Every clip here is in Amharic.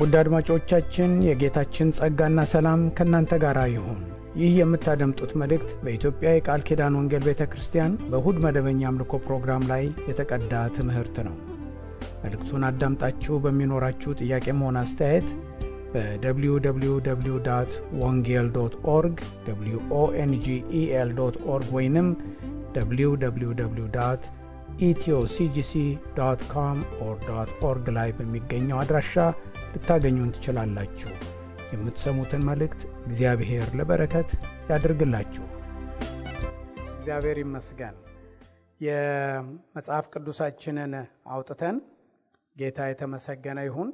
ውድ አድማጮቻችን የጌታችን ጸጋና ሰላም ከእናንተ ጋር ይሁን። ይህ የምታደምጡት መልእክት በኢትዮጵያ የቃል ኪዳን ወንጌል ቤተ ክርስቲያን በእሁድ መደበኛ አምልኮ ፕሮግራም ላይ የተቀዳ ትምህርት ነው። መልእክቱን አዳምጣችሁ በሚኖራችሁ ጥያቄም ሆነ አስተያየት በwww.wongel.org wongel.org ወይንም www.ethioCGC.com/org ላይ በሚገኘው አድራሻ ልታገኙን ትችላላችሁ። የምትሰሙትን መልእክት እግዚአብሔር ለበረከት ያድርግላችሁ። እግዚአብሔር ይመስገን። የመጽሐፍ ቅዱሳችንን አውጥተን ጌታ የተመሰገነ ይሁን።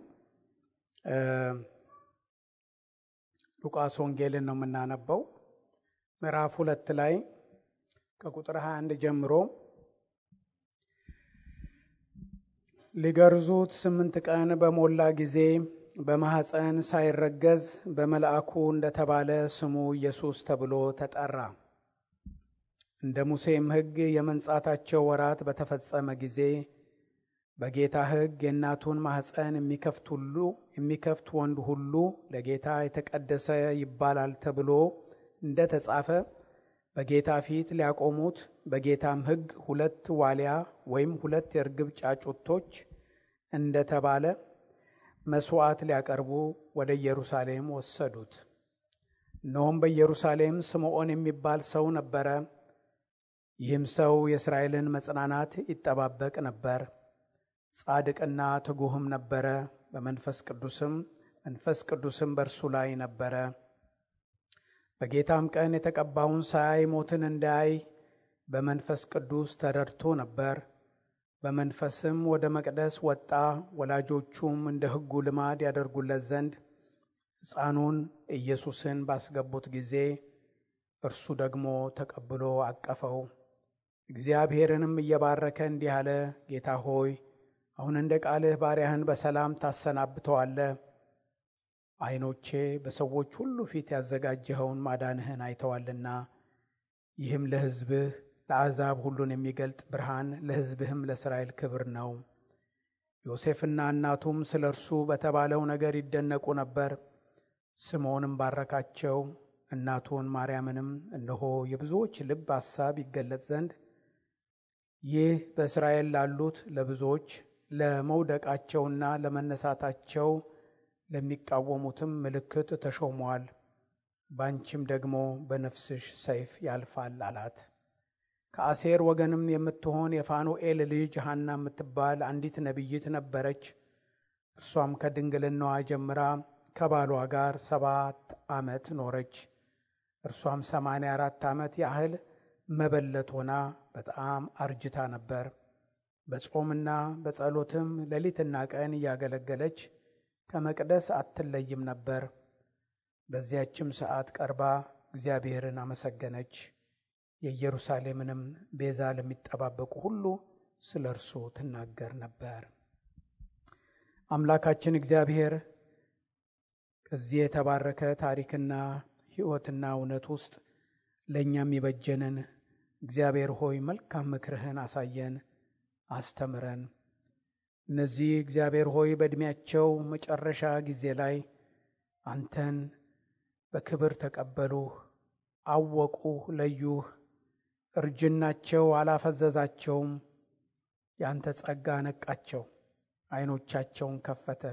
ሉቃስ ወንጌልን ነው የምናነበው። ምዕራፍ 2 ላይ ከቁጥር 21 ጀምሮ ሊገርዙት 8 ቀን በሞላ ጊዜ በማኅፀን ሳይረገዝ በመልአኩ እንደተባለ ስሙ ኢየሱስ ተብሎ ተጠራ። እንደ ሙሴም ሕግ የመንጻታቸው ወራት በተፈጸመ ጊዜ በጌታ ሕግ የእናቱን ማኅፀን የሚከፍት ወንድ ሁሉ ለጌታ የተቀደሰ ይባላል ተብሎ እንደ ተጻፈ በጌታ ፊት ሊያቆሙት በጌታም ሕግ 2 ዋሊያ ወይም 2 የርግብ ጫጩቶች እንደ ተባለ መሥዋዕት ሊያቀርቡ ወደ ኢየሩሳሌም ወሰዱት። እነሆም በኢየሩሳሌም ስምዖን የሚባል ሰው ነበረ። ይህም ሰው የእስራኤልን መጽናናት ይጠባበቅ ነበር። ጻድቅና ትጉህም ነበረ። መንፈስ ቅዱስም በእርሱ ላይ ነበረ። በጌታም ቀን የተቀባውን ሳያይ ሞትን እንዳያይ በመንፈስ ቅዱስ ተረድቶ ነበር። በመንፈስም ወደ መቅደስ ወጣ። ወላጆቹም እንደ ሕጉ ልማድ ያደርጉለት ዘንድ ሕፃኑን ኢየሱስን ባስገቡት ጊዜ እርሱ ደግሞ ተቀብሎ አቀፈው። እግዚአብሔርንም እየባረከ እንዲህ አለ፣ ጌታ ሆይ አሁን እንደ ቃልህ ባሪያህን በሰላም ታሰናብተዋለህ። ዓይኖቼ በሰዎች ሁሉ ፊት ያዘጋጀኸውን ማዳንህን አይተዋልና። ይህም ለሕዝብህ ለአሕዛብ ሁሉን የሚገልጥ ብርሃን፣ ለሕዝብህም ለእስራኤል ክብር ነው። ዮሴፍና እናቱም ስለ እርሱ በተባለው ነገር ይደነቁ ነበር። ስምዖንም ባረካቸው። እናቱን ማርያምንም እነሆ የብዙዎች ልብ ሐሳብ ይገለጥ ዘንድ ይህ በእስራኤል ላሉት ለብዙዎች ለመውደቃቸውና ለመነሳታቸው ለሚቃወሙትም ምልክት ተሾሟል። ባንቺም ደግሞ በነፍስሽ ሰይፍ ያልፋል አላት። ከአሴር ወገንም የምትሆን የፋኑኤል ልጅ ሐና የምትባል አንዲት ነቢይት ነበረች። እርሷም ከድንግልናዋ ጀምራ ከባሏ ጋር 7 ዓመት ኖረች። እርሷም 84 ዓመት ያህል መበለት ሆና በጣም አርጅታ ነበር። በጾምና በጸሎትም ሌሊትና ቀን እያገለገለች ከመቅደስ አትለይም ነበር። በዚያችም ሰዓት ቀርባ እግዚአብሔርን አመሰገነች። የኢየሩሳሌምንም ቤዛ ለሚጠባበቁ ሁሉ ስለ እርሱ ትናገር ነበር። አምላካችን እግዚአብሔር ከዚህ የተባረከ ታሪክና ሕይወትና እውነት ውስጥ ለእኛም ይበጀንን እግዚአብሔር ሆይ መልካም ምክርህን አሳየን፣ አስተምረን። እነዚህ እግዚአብሔር ሆይ በዕድሜያቸው መጨረሻ ጊዜ ላይ አንተን በክብር ተቀበሉህ፣ አወቁህ፣ ለዩህ። እርጅናቸው አላፈዘዛቸውም። ያንተ ጸጋ ነቃቸው፣ ዓይኖቻቸውን ከፈተ።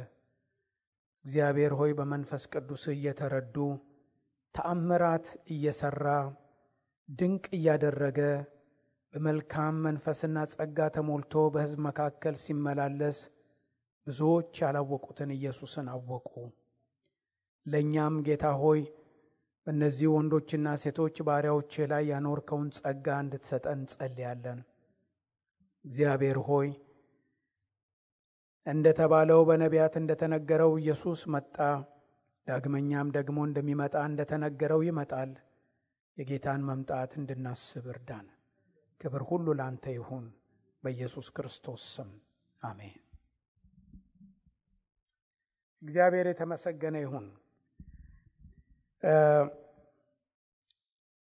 እግዚአብሔር ሆይ በመንፈስ ቅዱስ እየተረዱ ተአምራት እየሰራ ድንቅ እያደረገ በመልካም መንፈስና ጸጋ ተሞልቶ በሕዝብ መካከል ሲመላለስ ብዙዎች ያላወቁትን ኢየሱስን አወቁ። ለእኛም ጌታ ሆይ በእነዚህ ወንዶችና ሴቶች ባሪያዎች ላይ ያኖርከውን ጸጋ እንድትሰጠን እንጸልያለን። እግዚአብሔር ሆይ እንደተባለው በነቢያት እንደተነገረው ኢየሱስ መጣ፣ ዳግመኛም ደግሞ እንደሚመጣ እንደተነገረው ይመጣል። የጌታን መምጣት እንድናስብ እርዳን። ክብር ሁሉ ላንተ ይሁን፣ በኢየሱስ ክርስቶስ ስም አሜን። እግዚአብሔር የተመሰገነ ይሁን።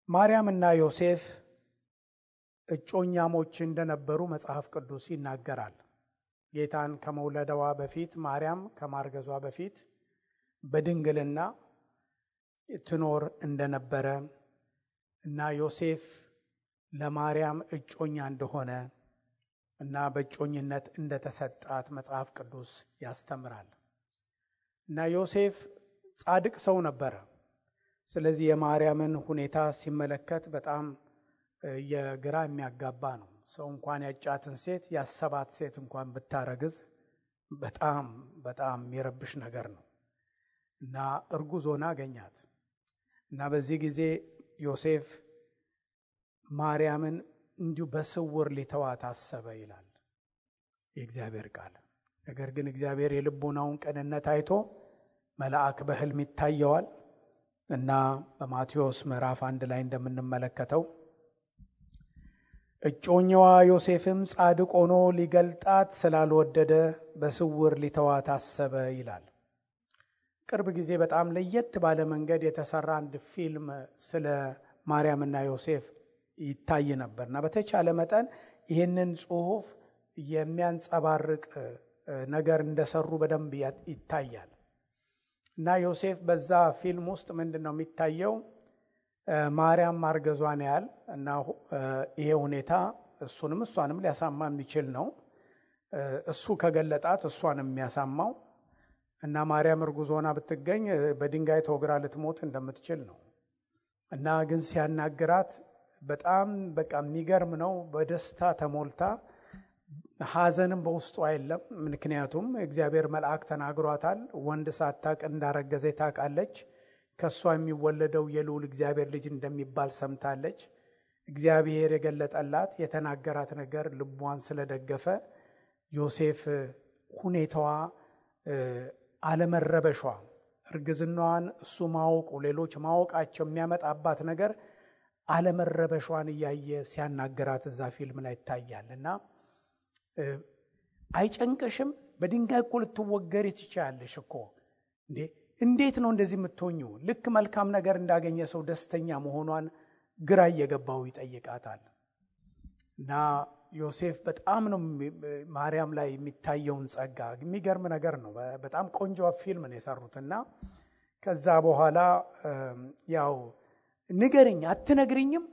ማርያምና ዮሴፍ እጮኛሞች እንደነበሩ መጽሐፍ ቅዱስ ይናገራል። ጌታን ከመውለደዋ በፊት ማርያም ከማርገዟ በፊት በድንግልና ትኖር እንደነበረ እና ዮሴፍ ለማርያም እጮኛ እንደሆነ እና በእጮኝነት እንደተሰጣት መጽሐፍ ቅዱስ ያስተምራል። እና ዮሴፍ ጻድቅ ሰው ነበረ። ስለዚህ የማርያምን ሁኔታ ሲመለከት በጣም የግራ የሚያጋባ ነው። ሰው እንኳን ያጫትን ሴት ያሰባት ሴት እንኳን ብታረግዝ በጣም በጣም የሚረብሽ ነገር ነው። እና እርጉዝ ሆና አገኛት። እና በዚህ ጊዜ ዮሴፍ ማርያምን እንዲሁ በስውር ሊተዋት አሰበ ይላል የእግዚአብሔር ቃል። ነገር ግን እግዚአብሔር የልቡናውን ቅንነት አይቶ መልአክ በሕልም ይታየዋል እና በማቴዎስ ምዕራፍ 1 ላይ እንደምንመለከተው እጮኛዋ ዮሴፍም ጻድቅ ሆኖ ሊገልጣት ስላልወደደ በስውር ሊተዋት አሰበ ይላል። ቅርብ ጊዜ በጣም ለየት ባለ መንገድ የተሰራ አንድ ፊልም ስለ ማርያምና ዮሴፍ ይታይ ነበርና በተቻለ መጠን ይህንን ጽሑፍ የሚያንጸባርቅ ነገር እንደሰሩ በደንብ ይታያል። እና ዮሴፍ በዛ ፊልም ውስጥ ምንድነው የሚታየው? ማርያም ማርገዟን ያህል እና ይሄ ሁኔታ እሱንም እሷንም ሊያሳማ የሚችል ነው። እሱ ከገለጣት እሷንም የሚያሳማው እና ማርያም እርጉዝ ሆና ብትገኝ በድንጋይ ተወግራ ልትሞት እንደምትችል ነው። እና ግን ሲያናግራት በጣም በቃ የሚገርም ነው። በደስታ ተሞልታ ሐዘንም በውስጡ አይደለም። ምክንያቱም እግዚአብሔር መልአክ ተናግሯታል። ወንድ ሳታቅ እንዳረገዘ ታውቃለች። ከሷ የሚወለደው የልዑል እግዚአብሔር ልጅ እንደሚባል ሰምታለች። እግዚአብሔር የገለጠላት የተናገራት ነገር ልቧን ስለደገፈ ዮሴፍ ሁኔታዋ አለመረበሿ፣ እርግዝናዋን እሱ ማወቁ፣ ሌሎች ማወቃቸው የሚያመጣባት ነገር አለመረበሿን እያየ ሲያናገራት እዛ ፊልም ላይ ይታያል። እና አይጨንቅሽም? በድንጋይ እኮ ልትወገሪ ትችያለሽ እኮ እንዴት ነው እንደዚህ የምትሆኙ? ልክ መልካም ነገር እንዳገኘ ሰው ደስተኛ መሆኗን ግራ እየገባው ይጠይቃታል። እና ዮሴፍ በጣም ነው ማርያም ላይ የሚታየውን ጸጋ፣ የሚገርም ነገር ነው። በጣም ቆንጆ ፊልም ነው የሰሩትና ከዛ በኋላ ያው ንገርኝ አትነግሪኝም?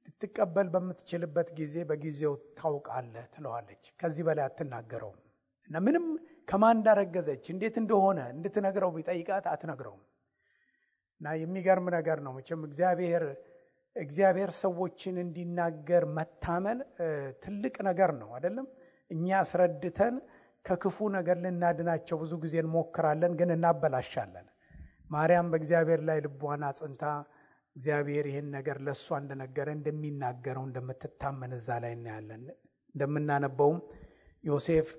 ልትቀበል በምትችልበት ጊዜ በጊዜው ታውቃለህ ትለዋለች። ከዚህ በላይ አትናገረውም። እና ምንም ከማን እንዳረገዘች እንዴት እንደሆነ እንድትነግረው ቢጠይቃት አትነግረውም። እና የሚገርም ነገር ነው። መቼም እግዚአብሔር ሰዎችን እንዲናገር መታመን ትልቅ ነገር ነው አይደለም? እኛ አስረድተን ከክፉ ነገር ልናድናቸው ብዙ ጊዜ እንሞክራለን፣ ግን እናበላሻለን። ማርያም በእግዚአብሔር ላይ ልቧን አጽንታ እግዚአብሔር ይህን ነገር ለእሷ እንደነገረ እንደሚናገረው እንደምትታመን እዛ ላይ እናያለን። እንደምናነበውም ዮሴፍ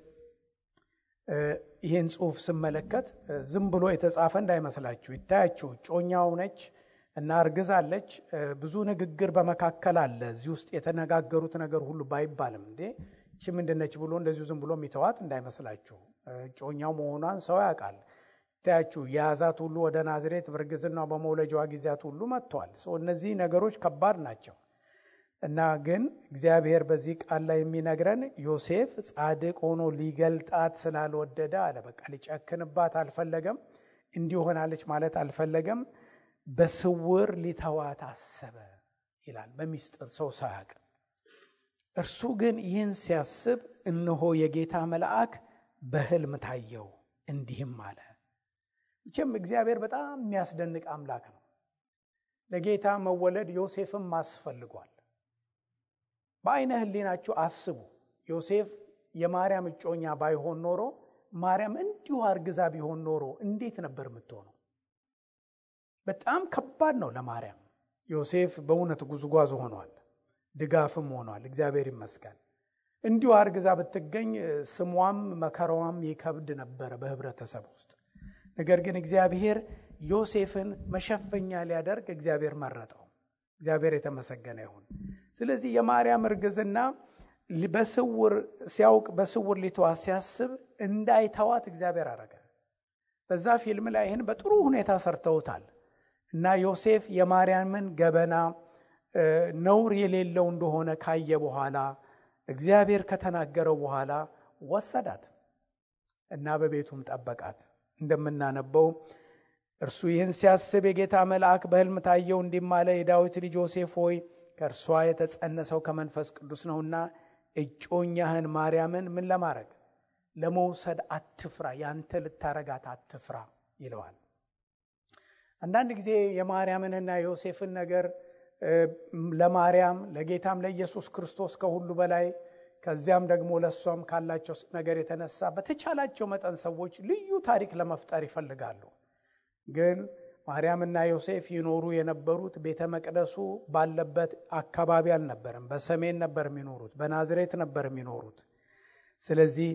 ይህን ጽሑፍ ስመለከት ዝም ብሎ የተጻፈ እንዳይመስላችሁ። ይታያችሁ ጮኛው ነች እና እርግዛለች። ብዙ ንግግር በመካከል አለ። እዚህ ውስጥ የተነጋገሩት ነገር ሁሉ ባይባልም እቺ ምንድነች ብሎ እንደዚሁ ዝም ብሎ የሚተዋት እንዳይመስላችሁ። ጮኛው መሆኗን ሰው ያውቃል። ታያችሁ የያዛት ሁሉ ወደ ናዝሬት በእርግዝና በመውለጃዋ ጊዜያት ሁሉ መጥቷል። እነዚህ ነገሮች ከባድ ናቸው። እና ግን እግዚአብሔር በዚህ ቃል ላይ የሚነግረን ዮሴፍ ጻድቅ ሆኖ ሊገልጣት ስላልወደደ አለ። በቃ ሊጨክንባት አልፈለገም። እንዲሆናለች ማለት አልፈለገም። በስውር ሊተዋት አሰበ ይላል፣ በሚስጥር ሰው ሳያውቅ። እርሱ ግን ይህን ሲያስብ እነሆ የጌታ መልአክ በሕልም ታየው፣ እንዲህም አለ። መቼም እግዚአብሔር በጣም የሚያስደንቅ አምላክ ነው። ለጌታ መወለድ ዮሴፍም አስፈልጓል። በአይነ ህሊናችሁ አስቡ። ዮሴፍ የማርያም እጮኛ ባይሆን ኖሮ፣ ማርያም እንዲሁ አርግዛ ቢሆን ኖሮ እንዴት ነበር የምትሆነው? በጣም ከባድ ነው ለማርያም። ዮሴፍ በእውነት ጉዝጓዝ ሆኗል፣ ድጋፍም ሆኗል። እግዚአብሔር ይመስገን። እንዲሁ አርግዛ ብትገኝ ስሟም መከራዋም ይከብድ ነበር በህብረተሰብ ውስጥ። ነገር ግን እግዚአብሔር ዮሴፍን መሸፈኛ ሊያደርግ እግዚአብሔር መረጠው። እግዚአብሔር የተመሰገነ ይሁን። ስለዚህ የማርያም እርግዝና በስውር ሲያውቅ በስውር ሊተዋት ሲያስብ እንዳይተዋት እግዚአብሔር አረገ። በዛ ፊልም ላይ ይህን በጥሩ ሁኔታ ሰርተውታል። እና ዮሴፍ የማርያምን ገበና ነውር የሌለው እንደሆነ ካየ በኋላ እግዚአብሔር ከተናገረው በኋላ ወሰዳት እና በቤቱም ጠበቃት። እንደምናነበው እርሱ ይህን ሲያስብ የጌታ መልአክ በሕልም ታየው፣ እንዲህም አለ፣ የዳዊት ልጅ ዮሴፍ ሆይ ከእርሷ የተጸነሰው ከመንፈስ ቅዱስ ነውና እጮኛህን ማርያምን ምን ለማድረግ ለመውሰድ አትፍራ፣ ያንተ ልታረጋት አትፍራ ይለዋል። አንዳንድ ጊዜ የማርያምንና የዮሴፍን ነገር ለማርያም ለጌታም ለኢየሱስ ክርስቶስ ከሁሉ በላይ ከዚያም ደግሞ ለሷም ካላቸው ነገር የተነሳ በተቻላቸው መጠን ሰዎች ልዩ ታሪክ ለመፍጠር ይፈልጋሉ። ግን ማርያምና ዮሴፍ ይኖሩ የነበሩት ቤተ መቅደሱ ባለበት አካባቢ አልነበረም። በሰሜን ነበር የሚኖሩት፣ በናዝሬት ነበር የሚኖሩት። ስለዚህ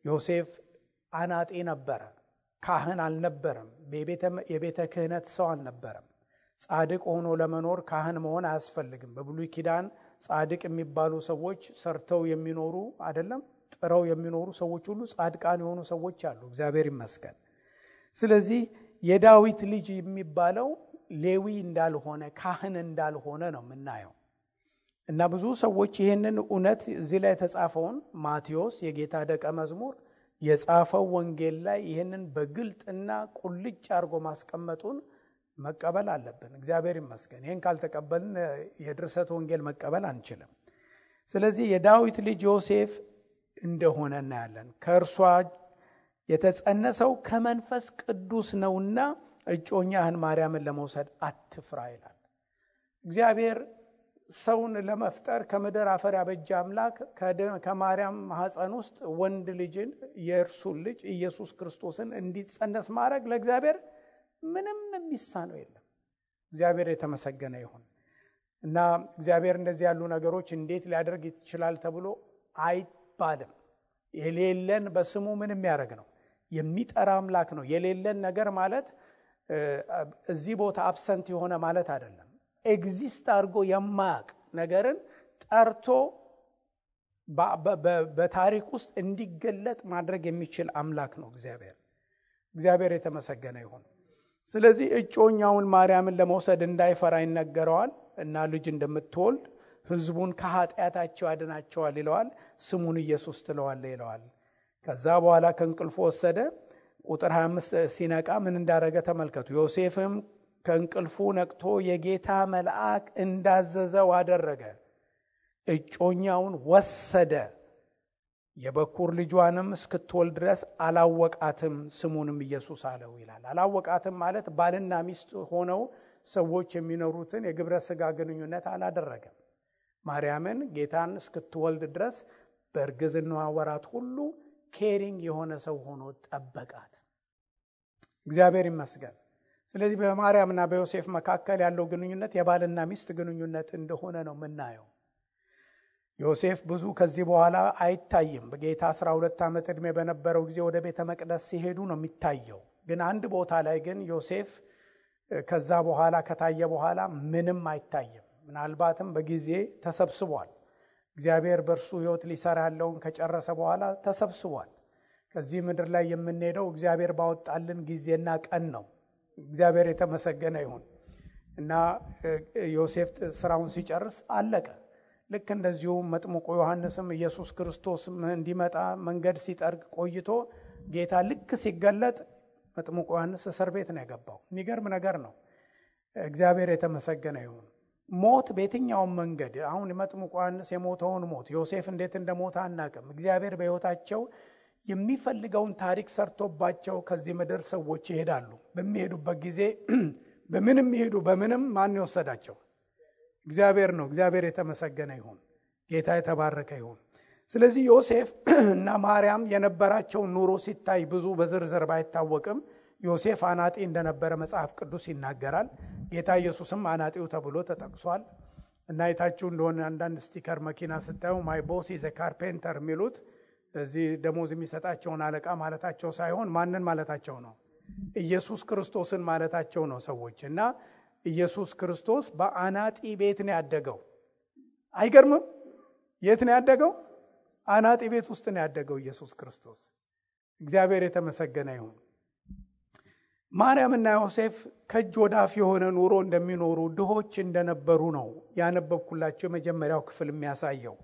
ዮሴፍ አናጢ ነበረ፣ ካህን አልነበረም፣ የቤተ ክህነት ሰው አልነበረም። ጻድቅ ሆኖ ለመኖር ካህን መሆን አያስፈልግም። በብሉይ ኪዳን ጻድቅ የሚባሉ ሰዎች ሰርተው የሚኖሩ አይደለም፣ ጥረው የሚኖሩ ሰዎች ሁሉ ጻድቃን የሆኑ ሰዎች አሉ፣ እግዚአብሔር ይመስገን። ስለዚህ የዳዊት ልጅ የሚባለው ሌዊ እንዳልሆነ ካህን እንዳልሆነ ነው የምናየው። እና ብዙ ሰዎች ይህንን እውነት እዚህ ላይ የተጻፈውን ማቴዎስ የጌታ ደቀ መዝሙር የጻፈው ወንጌል ላይ ይህንን በግልጥና ቁልጭ አድርጎ ማስቀመጡን መቀበል አለብን። እግዚአብሔር ይመስገን። ይህን ካልተቀበልን የድርሰት ወንጌል መቀበል አንችልም። ስለዚህ የዳዊት ልጅ ዮሴፍ እንደሆነ እናያለን። ከእርሷ የተጸነሰው ከመንፈስ ቅዱስ ነውና እጮኛህን ማርያምን ለመውሰድ አትፍራ ይላል። እግዚአብሔር ሰውን ለመፍጠር ከምድር አፈር ያበጀ አምላክ ከማርያም ማህፀን ውስጥ ወንድ ልጅን የእርሱን ልጅ ኢየሱስ ክርስቶስን እንዲጸነስ ማድረግ ለእግዚአብሔር ምንም የሚሳነው የለም። እግዚአብሔር የተመሰገነ ይሁን። እና እግዚአብሔር እንደዚህ ያሉ ነገሮች እንዴት ሊያደርግ ይችላል ተብሎ አይባልም። የሌለን በስሙ ምን የሚያደርግ ነው? የሚጠራ አምላክ ነው። የሌለን ነገር ማለት እዚህ ቦታ አብሰንት የሆነ ማለት አይደለም። ኤግዚስት አድርጎ የማያውቅ ነገርን ጠርቶ በታሪክ ውስጥ እንዲገለጥ ማድረግ የሚችል አምላክ ነው እግዚአብሔር የተመሰገነ ይሁን። ስለዚህ እጮኛውን ማርያምን ለመውሰድ እንዳይፈራ ይነገረዋል እና ልጅ እንደምትወልድ ሕዝቡን ከኃጢአታቸው ያድናቸዋል ይለዋል። ስሙን ኢየሱስ ትለዋለህ ይለዋል። ከዛ በኋላ ከእንቅልፉ ወሰደ። ቁጥር 25 ሲነቃ ምን እንዳደረገ ተመልከቱ። ዮሴፍም ከእንቅልፉ ነቅቶ የጌታ መልአክ እንዳዘዘው አደረገ። እጮኛውን ወሰደ፣ የበኩር ልጇንም እስክትወልድ ድረስ አላወቃትም፣ ስሙንም ኢየሱስ አለው ይላል። አላወቃትም ማለት ባልና ሚስት ሆነው ሰዎች የሚኖሩትን የግብረ ሥጋ ግንኙነት አላደረገም። ማርያምን ጌታን እስክትወልድ ድረስ በእርግዝናዋ ወራት ሁሉ ኬሪንግ የሆነ ሰው ሆኖ ጠበቃት። እግዚአብሔር ይመስገን። ስለዚህ በማርያምና በዮሴፍ መካከል ያለው ግንኙነት የባልና ሚስት ግንኙነት እንደሆነ ነው የምናየው። ዮሴፍ ብዙ ከዚህ በኋላ አይታይም። በጌታ 12 ዓመት ዕድሜ በነበረው ጊዜ ወደ ቤተ መቅደስ ሲሄዱ ነው የሚታየው። ግን አንድ ቦታ ላይ ግን ዮሴፍ ከዛ በኋላ ከታየ በኋላ ምንም አይታይም። ምናልባትም በጊዜ ተሰብስቧል። እግዚአብሔር በእርሱ ሕይወት ሊሰራ ያለውን ከጨረሰ በኋላ ተሰብስቧል። ከዚህ ምድር ላይ የምንሄደው እግዚአብሔር ባወጣልን ጊዜና ቀን ነው። እግዚአብሔር የተመሰገነ ይሁን። እና ዮሴፍ ስራውን ሲጨርስ አለቀ። ልክ እንደዚሁ መጥምቁ ዮሐንስም ኢየሱስ ክርስቶስ እንዲመጣ መንገድ ሲጠርግ ቆይቶ ጌታ ልክ ሲገለጥ መጥምቁ ዮሐንስ እስር ቤት ነው የገባው። የሚገርም ነገር ነው። እግዚአብሔር የተመሰገነ ይሁን። ሞት በየትኛውም መንገድ አሁን መጥምቁ ዮሐንስ የሞተውን ሞት ዮሴፍ እንዴት እንደሞተ አናውቅም። እግዚአብሔር በሕይወታቸው የሚፈልገውን ታሪክ ሰርቶባቸው ከዚህ ምድር ሰዎች ይሄዳሉ። በሚሄዱበት ጊዜ በምንም ይሄዱ በምንም ማን ይወሰዳቸው? እግዚአብሔር ነው። እግዚአብሔር የተመሰገነ ይሁን። ጌታ የተባረከ ይሁን። ስለዚህ ዮሴፍ እና ማርያም የነበራቸው ኑሮ ሲታይ ብዙ በዝርዝር ባይታወቅም ዮሴፍ አናጢ እንደነበረ መጽሐፍ ቅዱስ ይናገራል። ጌታ ኢየሱስም አናጢው ተብሎ ተጠቅሷል። እና አይታችሁ እንደሆነ አንዳንድ ስቲከር መኪና ስታዩ ማይ ቦስ ኢዝ ኤ ካርፔንተር የሚሉት እዚህ ደሞዝ የሚሰጣቸውን አለቃ ማለታቸው ሳይሆን ማንን ማለታቸው ነው? ኢየሱስ ክርስቶስን ማለታቸው ነው ሰዎች። እና ኢየሱስ ክርስቶስ በአናጢ ቤት ነው ያደገው። አይገርምም? የት ነው ያደገው? አናጢ ቤት ውስጥ ነው ያደገው ኢየሱስ ክርስቶስ። እግዚአብሔር የተመሰገነ ይሁን። ማርያምና ዮሴፍ ከእጅ ወደ አፍ የሆነ ኑሮ እንደሚኖሩ ድሆች እንደነበሩ ነው ያነበብኩላቸው የመጀመሪያው ክፍል የሚያሳየው።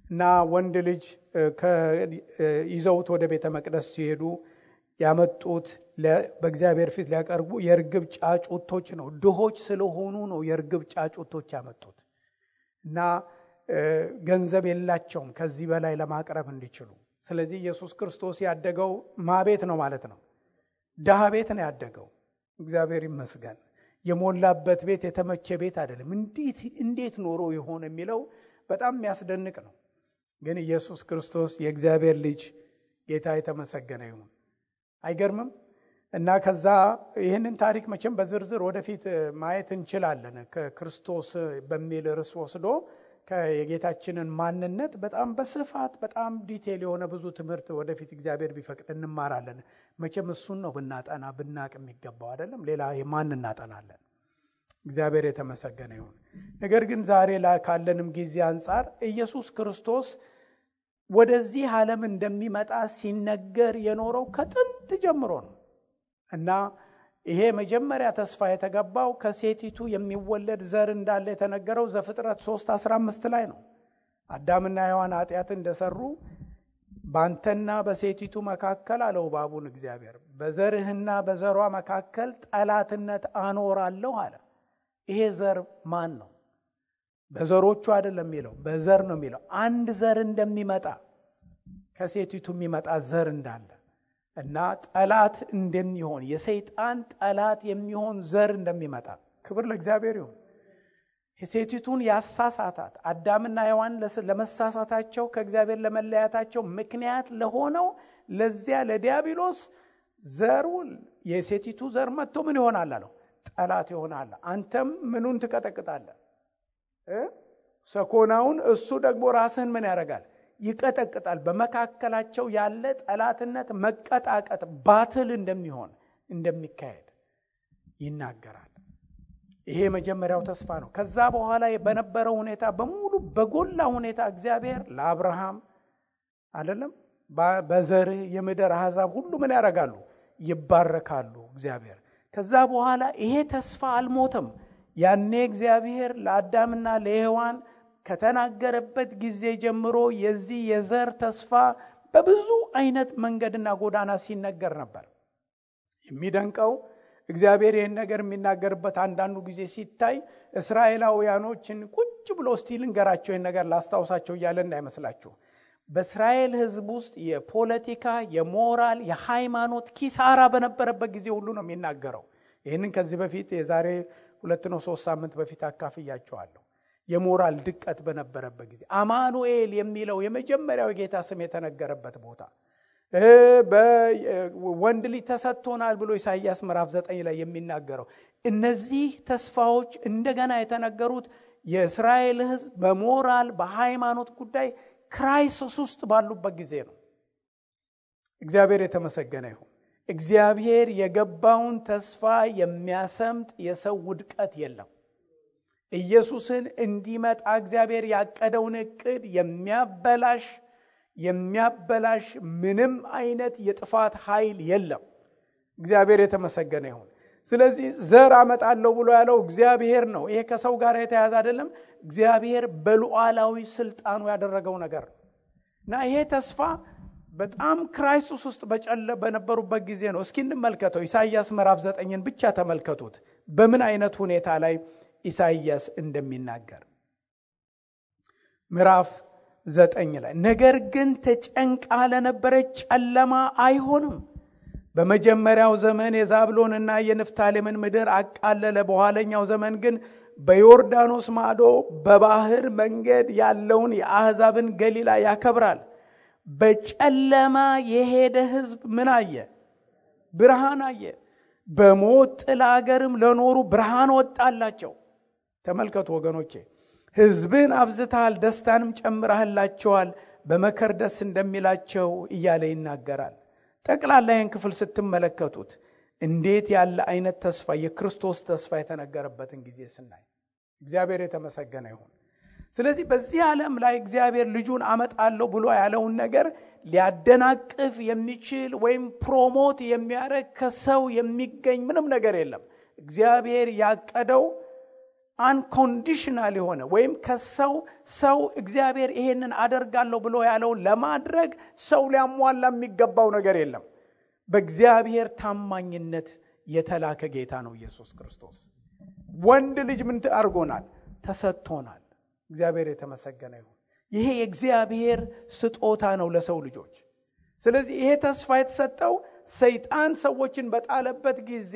እና ወንድ ልጅ ይዘውት ወደ ቤተ መቅደስ ሲሄዱ ያመጡት በእግዚአብሔር ፊት ሊያቀርቡ የርግብ ጫጩቶች ነው። ድሆች ስለሆኑ ነው የርግብ ጫጩቶች ያመጡት እና ገንዘብ የላቸውም ከዚህ በላይ ለማቅረብ እንዲችሉ። ስለዚህ ኢየሱስ ክርስቶስ ያደገው ማቤት ነው ማለት ነው? ድሃ ቤት ነው ያደገው። እግዚአብሔር ይመስገን። የሞላበት ቤት የተመቸ ቤት አይደለም። እንዴት ኖሮ ይሆን የሚለው በጣም የሚያስደንቅ ነው። ግን ኢየሱስ ክርስቶስ የእግዚአብሔር ልጅ ጌታ የተመሰገነ ይሁን። አይገርምም? እና ከዛ ይህንን ታሪክ መቼም በዝርዝር ወደፊት ማየት እንችላለን። ከክርስቶስ በሚል ርዕስ ወስዶ የጌታችንን ማንነት በጣም በስፋት በጣም ዲቴል የሆነ ብዙ ትምህርት ወደፊት እግዚአብሔር ቢፈቅድ እንማራለን። መቼም እሱን ነው ብናጠና ብናቅ የሚገባው አይደለም። ሌላ የማን እናጠናለን? እግዚአብሔር የተመሰገነ ይሁን። ነገር ግን ዛሬ ላይ ካለንም ጊዜ አንጻር ኢየሱስ ክርስቶስ ወደዚህ ዓለም እንደሚመጣ ሲነገር የኖረው ከጥንት ጀምሮ ነው እና ይሄ መጀመሪያ ተስፋ የተገባው ከሴቲቱ የሚወለድ ዘር እንዳለ የተነገረው ዘፍጥረት 3:15 ላይ ነው። አዳምና ሔዋን ኃጢአት እንደሰሩ ባንተና በሴቲቱ መካከል አለው እባቡን እግዚአብሔር፣ በዘርህና በዘሯ መካከል ጠላትነት አኖራለሁ አለ። ይሄ ዘር ማን ነው? በዘሮቹ አይደለም የሚለው፣ በዘር ነው የሚለው። አንድ ዘር እንደሚመጣ ከሴቲቱ የሚመጣ ዘር እንዳለ እና ጠላት እንደሚሆን የሰይጣን ጠላት የሚሆን ዘር እንደሚመጣ ክብር ለእግዚአብሔር ይሁን። ሴቲቱን ያሳሳታት አዳምና ሔዋን ለመሳሳታቸው ከእግዚአብሔር ለመለያታቸው ምክንያት ለሆነው ለዚያ ለዲያብሎስ ዘሩ የሴቲቱ ዘር መጥቶ ምን ይሆናል አለው? ጠላት ይሆናል። አንተም ምኑን ትቀጠቅጣለህ? ሰኮናውን። እሱ ደግሞ ራስህን ምን ያደርጋል? ይቀጠቅጣል። በመካከላቸው ያለ ጠላትነት መቀጣቀጥ ባትል እንደሚሆን እንደሚካሄድ ይናገራል። ይሄ መጀመሪያው ተስፋ ነው። ከዛ በኋላ በነበረው ሁኔታ በሙሉ በጎላ ሁኔታ እግዚአብሔር ለአብርሃም አይደለም በዘርህ የምድር አሕዛብ ሁሉ ምን ያደርጋሉ? ይባረካሉ። እግዚአብሔር ከዛ በኋላ ይሄ ተስፋ አልሞተም። ያኔ እግዚአብሔር ለአዳምና ለሔዋን ከተናገረበት ጊዜ ጀምሮ የዚህ የዘር ተስፋ በብዙ አይነት መንገድና ጎዳና ሲነገር ነበር። የሚደንቀው እግዚአብሔር ይህን ነገር የሚናገርበት አንዳንዱ ጊዜ ሲታይ እስራኤላውያኖችን ቁጭ ብሎ እስቲ ልንገራቸው ይህን ነገር ላስታውሳቸው እያለ እንዳይመስላችሁ። በእስራኤል ሕዝብ ውስጥ የፖለቲካ፣ የሞራል፣ የሃይማኖት ኪሳራ በነበረበት ጊዜ ሁሉ ነው የሚናገረው። ይህንን ከዚህ በፊት የዛሬ 2-3 ሳምንት በፊት አካፍያቸዋለሁ። የሞራል ድቀት በነበረበት ጊዜ አማኑኤል የሚለው የመጀመሪያው የጌታ ስም የተነገረበት ቦታ ወንድ ልጅ ተሰጥቶናል ብሎ ኢሳይያስ ምዕራፍ 9 ላይ የሚናገረው እነዚህ ተስፋዎች እንደገና የተነገሩት የእስራኤል ሕዝብ በሞራል በሃይማኖት ጉዳይ ክራይሲስ ውስጥ ባሉበት ጊዜ ነው። እግዚአብሔር የተመሰገነ ይሁን። እግዚአብሔር የገባውን ተስፋ የሚያሰምጥ የሰው ውድቀት የለም። ኢየሱስን እንዲመጣ እግዚአብሔር ያቀደውን እቅድ የሚያበላሽ ምንም አይነት የጥፋት ኃይል የለም። እግዚአብሔር የተመሰገነ ይሁን። ስለዚህ ዘር አመጣለሁ ብሎ ያለው እግዚአብሔር ነው። ይሄ ከሰው ጋር የተያያዘ አይደለም። እግዚአብሔር በሉዓላዊ ስልጣኑ ያደረገው ነገር እና ይሄ ተስፋ በጣም ክራይሲስ ውስጥ በነበሩበት ጊዜ ነው። እስኪ እንመልከተው። ኢሳይያስ ምዕራፍ 9ን ብቻ ተመልከቱት በምን አይነት ሁኔታ ላይ ኢሳይያስ እንደሚናገር። ምዕራፍ 9 ላይ ነገር ግን ተጨንቃ ለነበረች ጨለማ አይሆንም። በመጀመሪያው ዘመን የዛብሎንና የንፍታሌምን ምድር አቃለለ። በኋለኛው ዘመን ግን በዮርዳኖስ ማዶ በባህር መንገድ ያለውን የአሕዛብን ገሊላ ያከብራል። በጨለማ የሄደ ሕዝብ ምን አየ? ብርሃን አየ። በሞት ጥላ አገርም ለኖሩ ብርሃን ወጣላቸው። ተመልከቱ ወገኖቼ፣ ሕዝብን አብዝተሃል፣ ደስታንም ጨምረህላቸዋል፣ በመከር ደስ እንደሚላቸው እያለ ይናገራል። ጠቅላላ ይህን ክፍል ስትመለከቱት እንዴት ያለ አይነት ተስፋ የክርስቶስ ተስፋ የተነገረበትን ጊዜ ስናይ እግዚአብሔር የተመሰገነ ይሁን። ስለዚህ በዚህ ዓለም ላይ እግዚአብሔር ልጁን አመጣለሁ ብሎ ያለውን ነገር ሊያደናቅፍ የሚችል ወይም ፕሮሞት የሚያደርግ ከሰው የሚገኝ ምንም ነገር የለም። እግዚአብሔር ያቀደው አንኮንዲሽናል የሆነ ወይም ሰው እግዚአብሔር ይሄንን አደርጋለሁ ብሎ ያለውን ለማድረግ ሰው ሊያሟላ የሚገባው ነገር የለም። በእግዚአብሔር ታማኝነት የተላከ ጌታ ነው ኢየሱስ ክርስቶስ። ወንድ ልጅ ምን አድርጎናል? ተሰጥቶናል። እግዚአብሔር የተመሰገነ ይሁን። ይሄ የእግዚአብሔር ስጦታ ነው ለሰው ልጆች። ስለዚህ ይሄ ተስፋ የተሰጠው ሰይጣን ሰዎችን በጣለበት ጊዜ፣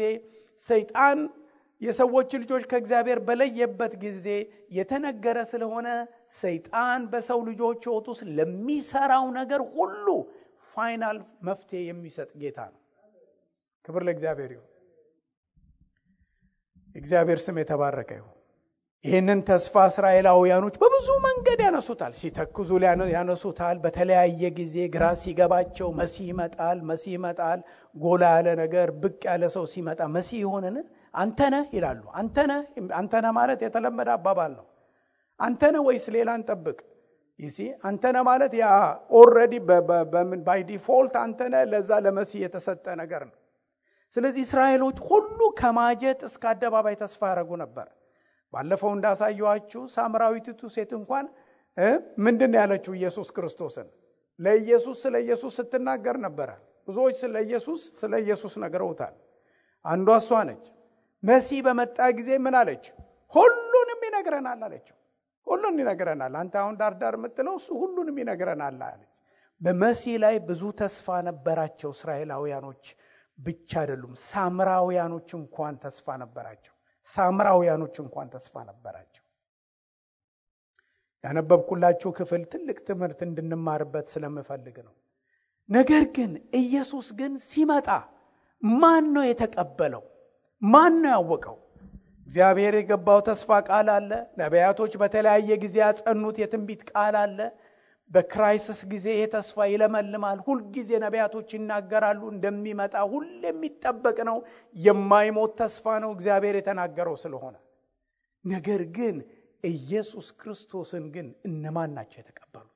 ሰይጣን የሰዎች ልጆች ከእግዚአብሔር በለየበት ጊዜ የተነገረ ስለሆነ ሰይጣን በሰው ልጆች ሕይወት ውስጥ ለሚሰራው ነገር ሁሉ ፋይናል መፍትሄ የሚሰጥ ጌታ ነው። ክብር ለእግዚአብሔር ይሁን። እግዚአብሔር ስም የተባረከ ይሁን። ይህንን ተስፋ እስራኤላውያኖች በብዙ መንገድ ያነሱታል። ሲተክዙ ያነሱታል። በተለያየ ጊዜ ግራ ሲገባቸው መሲህ ይመጣል። ጎላ ያለ ነገር ብቅ ያለ ሰው ሲመጣ መሲህ ይሆንን? አንተነህ ይላሉ። አንተነህ ማለት የተለመደ አባባል ነው። አንተነህ ወይስ ሌላ እንጠብቅ? አንተነህ ማለት ያ ኦልሬዲ ባይ ዲፎልት አንተነህ ለዛ ለመሲህ የተሰጠ ነገር ነው። ስለዚህ እስራኤሎች ሁሉ ከማጀት እስከ አደባባይ ተስፋ ያደረጉ ነበር። ባለፈው እንዳሳየኋችሁ ሳምራዊቱ ሴት እንኳን ምንድን ነው ያለችው? ኢየሱስ ክርስቶስን ስለ ኢየሱስ ስትናገር ነበረ። ብዙዎች ስለ ኢየሱስ ነግረውታል። አንዷ እሷ ነች። መሲህ በመጣ ጊዜ ምን አለች? ሁሉንም ይነግረናል አለችው። ሁሉንም ይነግረናል። አንተ አሁን ዳርዳር የምትለው እሱ ሁሉንም ይነግረናል አለች። በመሲህ ላይ ብዙ ተስፋ ነበራቸው እስራኤላውያኖች ብቻ አይደሉም። ሳምራውያኖች እንኳን ተስፋ ነበራቸው። ያነበብኩላችሁ ክፍል ትልቅ ትምህርት እንድንማርበት ስለምፈልግ ነው። ነገር ግን ኢየሱስ ግን ሲመጣ ማን ነው የተቀበለው? ማን ነው ያወቀው? እግዚአብሔር የገባው ተስፋ ቃል አለ። ነቢያቶች በተለያየ ጊዜ ያጸኑት የትንቢት ቃል አለ። በክራይሲስ ጊዜ ይሄ ተስፋ ይለመልማል። ሁል ጊዜ ነቢያቶች ይናገራሉ እንደሚመጣ። ሁሉ የሚጠበቅ ነው። የማይሞት ተስፋ ነው እግዚአብሔር የተናገረው ስለሆነ። ነገር ግን ኢየሱስ ክርስቶስን ግን እነማን ናቸው የተቀበሉት?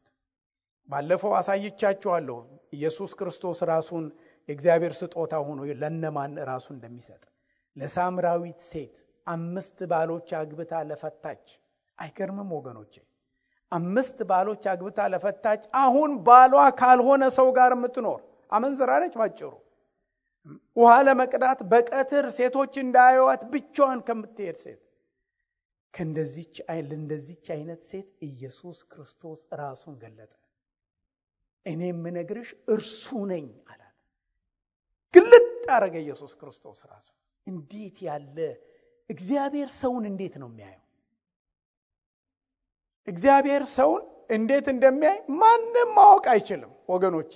ባለፈው አሳይቻችኋለሁ። ኢየሱስ ክርስቶስ ራሱን የእግዚአብሔር ስጦታ ሆኖ ለነማን ራሱ እንደሚሰጥ። ለሳምራዊት ሴት 5 ባሎች አግብታ ለፈታች። አይገርምም ወገኖቼ? 5 ባሎች አግብታ ለፈታች። አሁን ባሏ ካልሆነ ሰው ጋር የምትኖር አመንዝራ ነች ባጭሩ። ውሃ ለመቅዳት በቀትር ሴቶች እንዳያዩዋት ብቻዋን ከምትሄድ ሴት፣ ለእንደዚች አይነት ሴት ኢየሱስ ክርስቶስ ራሱን ገለጠ። እኔ የምነግርሽ እርሱ ነኝ አላት። ግልጥ አረገ ኢየሱስ ክርስቶስ ራሱ። እንዴት ያለ እግዚአብሔር ሰውን እንዴት ነው የሚያየው? እግዚአብሔር ሰውን እንዴት እንደሚያይ ማንም ማወቅ አይችልም ወገኖቼ።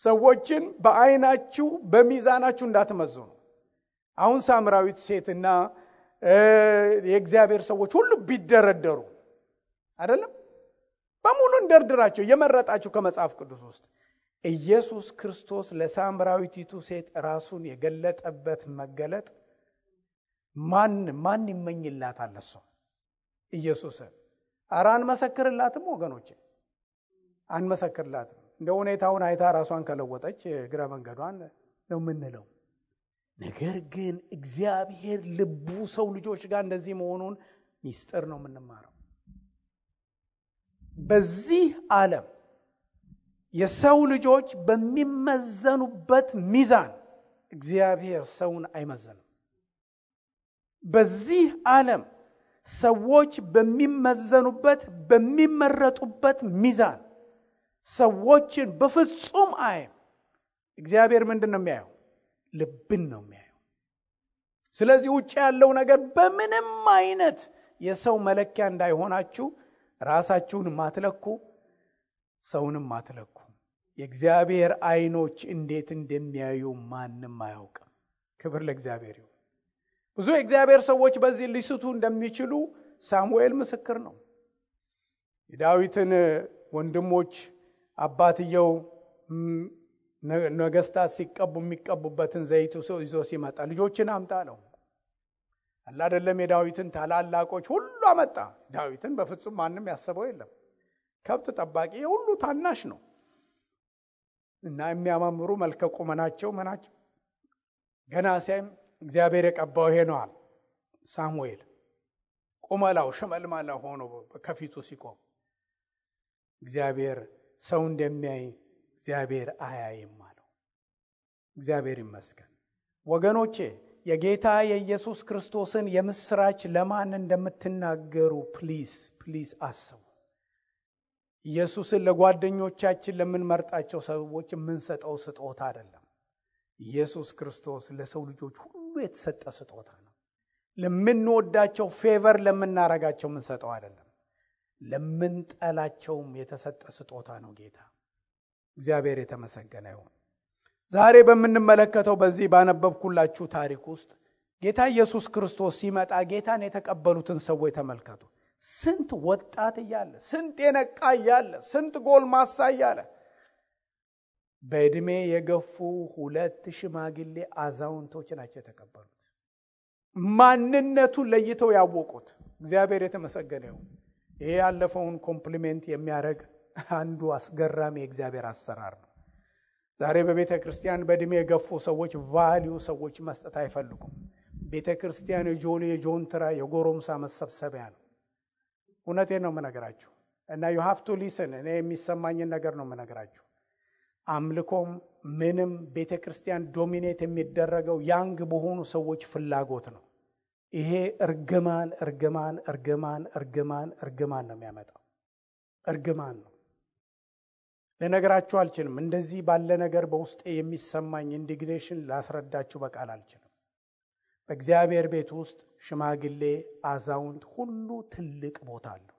ሰዎችን በአይናችሁ በሚዛናችሁ እንዳትመዝኑ። አሁን ሳምራዊት ሴትና የእግዚአብሔር ሰዎች ሁሉ ቢደረደሩ አይደለም በሙሉ እንደርድራቸው የመረጣችሁ ከመጽሐፍ ቅዱስ ውስጥ ኢየሱስ ክርስቶስ ለሳምራዊቲቱ ሴት ራሱን የገለጠበት መገለጥ ማን ይመኝላታል? እሱ ኢየሱስን አንመሰክርላትም ወገኖቼ፣ አንመሰክርላትም። እንደ ሁኔታውን አይታ ራሷን ከለወጠች እግረ መንገዷን ነው የምንለው። ነገር ግን እግዚአብሔር ልቡ ሰው ልጆች ጋር እንደዚህ መሆኑን ሚስጥር ነው የምንማረው። በዚህ ዓለም የሰው ልጆች በሚመዘኑበት ሚዛን እግዚአብሔር ሰውን አይመዘንም። በዚህ ዓለም ሰዎች በሚመረጡበት ሚዛን ሰዎችን በፍጹም አይም እግዚአብሔር ምንድን ነው የሚያየው? ልብን ነው የሚያየው። ስለዚህ ውጭ ያለው ነገር በምንም አይነት የሰው መለኪያ እንዳይሆናችሁ ራሳችሁን ማትለኩ፣ ሰውንም ማትለኩ። የእግዚአብሔር አይኖች እንዴት እንደሚያዩ ማንም አያውቅም። ክብር ለእግዚአብሔር ይሁን። ብዙ የእግዚአብሔር ሰዎች በዚህ ሊስቱ እንደሚችሉ ሳሙኤል ምስክር ነው። የዳዊትን ወንድሞች አባትየው ነገስታት ሲቀቡ የሚቀቡበትን ዘይት ይዞ ሲመጣ ልጆችን አምጣ ነው አይደለም። የዳዊትን ታላላቆች ሁሉ አመጣ። ዳዊትን በፍጹም ማንም ያሰበው የለም። ከብት ጠባቂ ሁሉ ታናሽ ነው እና የሚያማምሩ መልከ ቁመናቸው መናቸው ገና ሲያይም እግዚአብሔር የቀባው ይሄ ነው አለ። ሳሙኤል ቁመላው ሽመልማላ ሆኖ ከፊቱ ሲቆም እግዚአብሔር ሰው እንደሚያይ እግዚአብሔር አያይም አለው። እግዚአብሔር ይመስገን። ወገኖቼ የጌታ የኢየሱስ ክርስቶስን የምስራች ለማን እንደምትናገሩ ፕሊዝ አስቡ። ኢየሱስን ለጓደኞቻችን ለምንመርጣቸው ሰዎች የምንሰጠው ስጦታ አይደለም። ኢየሱስ ክርስቶስ ለሰው ልጆች ሁሉ የተሰጠ ስጦታ ነው። ለምንወዳቸው ፌቨር ለምናረጋቸው የምንሰጠው አይደለም። ለምንጠላቸውም የተሰጠ ስጦታ ነው ጌታ። እግዚአብሔር የተመሰገነ ይሁን። ዛሬ በምንመለከተው በዚህ ባነበብኩላችሁ ታሪክ ውስጥ ጌታ ኢየሱስ ክርስቶስ ሲመጣ ጌታን የተቀበሉትን ሰዎች ተመልከቱ። ስንት ወጣት እያለ፣ ስንት የነቃ እያለ፣ ስንት ጎልማሳ እያለ በእድሜ የገፉ 2 ሽማግሌ አዛውንቶች ናቸው የተቀበሉት። ማንነቱን ለይተው ያወቁት። እግዚአብሔር የተመሰገነ ይሁን። ይሄ ያለፈውን ኮምፕሊሜንት የሚያደርግ አንዱ አስገራሚ የእግዚአብሔር አሰራር ነው። ዛሬ በቤተ ክርስቲያን በእድሜ የገፉ ሰዎች ቫልዩ ሰዎች መስጠት አይፈልጉም። ቤተ ክርስቲያን የጆንትራ የጎረምሳ መሰብሰቢያ ነው። እውነቴን ነው የምነግራችሁ እና you have to listen። እኔ የሚሰማኝን ነገር ነው የምነግራችሁ። አምልኮም ምንም ቤተ ክርስቲያን ዶሚኔት የሚደረገው ያንግ በሆኑ ሰዎች ፍላጎት ነው። ይሄ እርግማን ነው የሚያመጣው። እርግማን ነው። ለነገራችሁ አልችልም። እንደዚህ ባለ ነገር በውስጤ የሚሰማኝ ኢንዲግኔሽን ላስረዳችሁ በቃል አልችልም። በእግዚአብሔር ቤት ውስጥ ሽማግሌ፣ አዛውንት ሁሉ ትልቅ ቦታ አለው።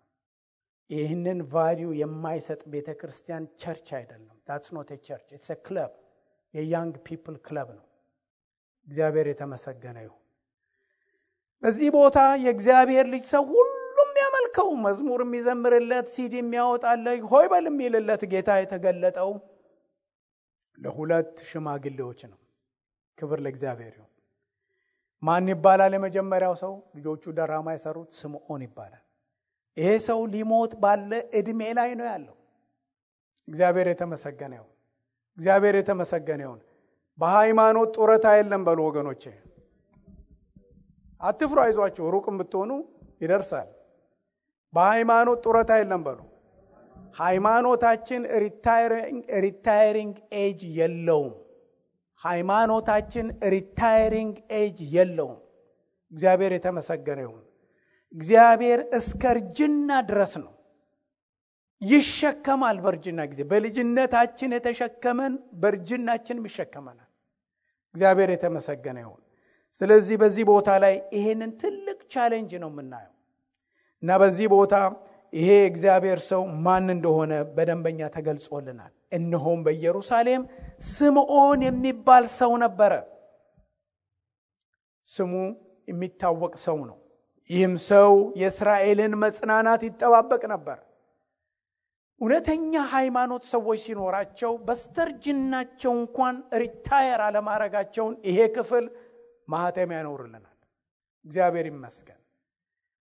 ይህንን ቫልዩ የማይሰጥ ቤተ ክርስቲያን ቸርች አይደለም። that's not a church, it's a club። የያንግ ፒፕል ክለብ ነው። እግዚአብሔር የተመሰገነ ይሁን። በዚህ ቦታ የእግዚአብሔር ልጅ ሰው ሁሉም ያመልከው፣ መዝሙር የሚዘምርለት፣ ሲዲ የሚያወጣለት፣ ሆይ በል የሚልለት ጌታ የተገለጠው ለ2 ሽማግሌዎች ነው። ክብር ለእግዚአብሔር ይሁን። ማን ይባላል? የመጀመሪያው ሰው ልጆቹ ደራማ የሰሩት ስምዖን ይባላል። ይሄ ሰው ሊሞት ባለ እድሜ ላይ ነው ያለው። እግዚአብሔር የተመሰገነ ይሁን። እግዚአብሔር የተመሰገነ ይሁን። በሃይማኖት ጡረታ የለም በሉ ወገኖቼ። አትፍሩ፣ አይዟችሁ፣ ሩቅም ብትሆኑ ይደርሳል። በሃይማኖት ጡረታ የለም በሉ። ሃይማኖታችን ሪታየሪንግ ኤጅ የለውም። ሃይማኖታችን ሪታየሪንግ ኤጅ የለውም። እግዚአብሔር የተመሰገነ ይሁን። እግዚአብሔር እስከ እርጅና ድረስ ነው ይሸከማል። በእርጅና ጊዜ በልጅነታችን የተሸከመን በእርጅናችን ይሸከመናል። እግዚአብሔር የተመሰገነ ይሁን። ስለዚህ በዚህ ቦታ ላይ ይሄንን ትልቅ ቻሌንጅ ነው የምናየው እና በዚህ ቦታ ይሄ እግዚአብሔር ሰው ማን እንደሆነ በደንበኛ ተገልጾልናል። እነሆም በኢየሩሳሌም ስምዖን የሚባል ሰው ነበረ። ስሙ የሚታወቅ ሰው ነው። ይህም ሰው የእስራኤልን መጽናናት ይጠባበቅ ነበር። እውነተኛ ሃይማኖት ሰዎች ሲኖራቸው በስተርጅናቸው እንኳን ሪታየር አለማረጋቸውን ይሄ ክፍል ማህተም ያኖርልናል። እግዚአብሔር ይመስገን።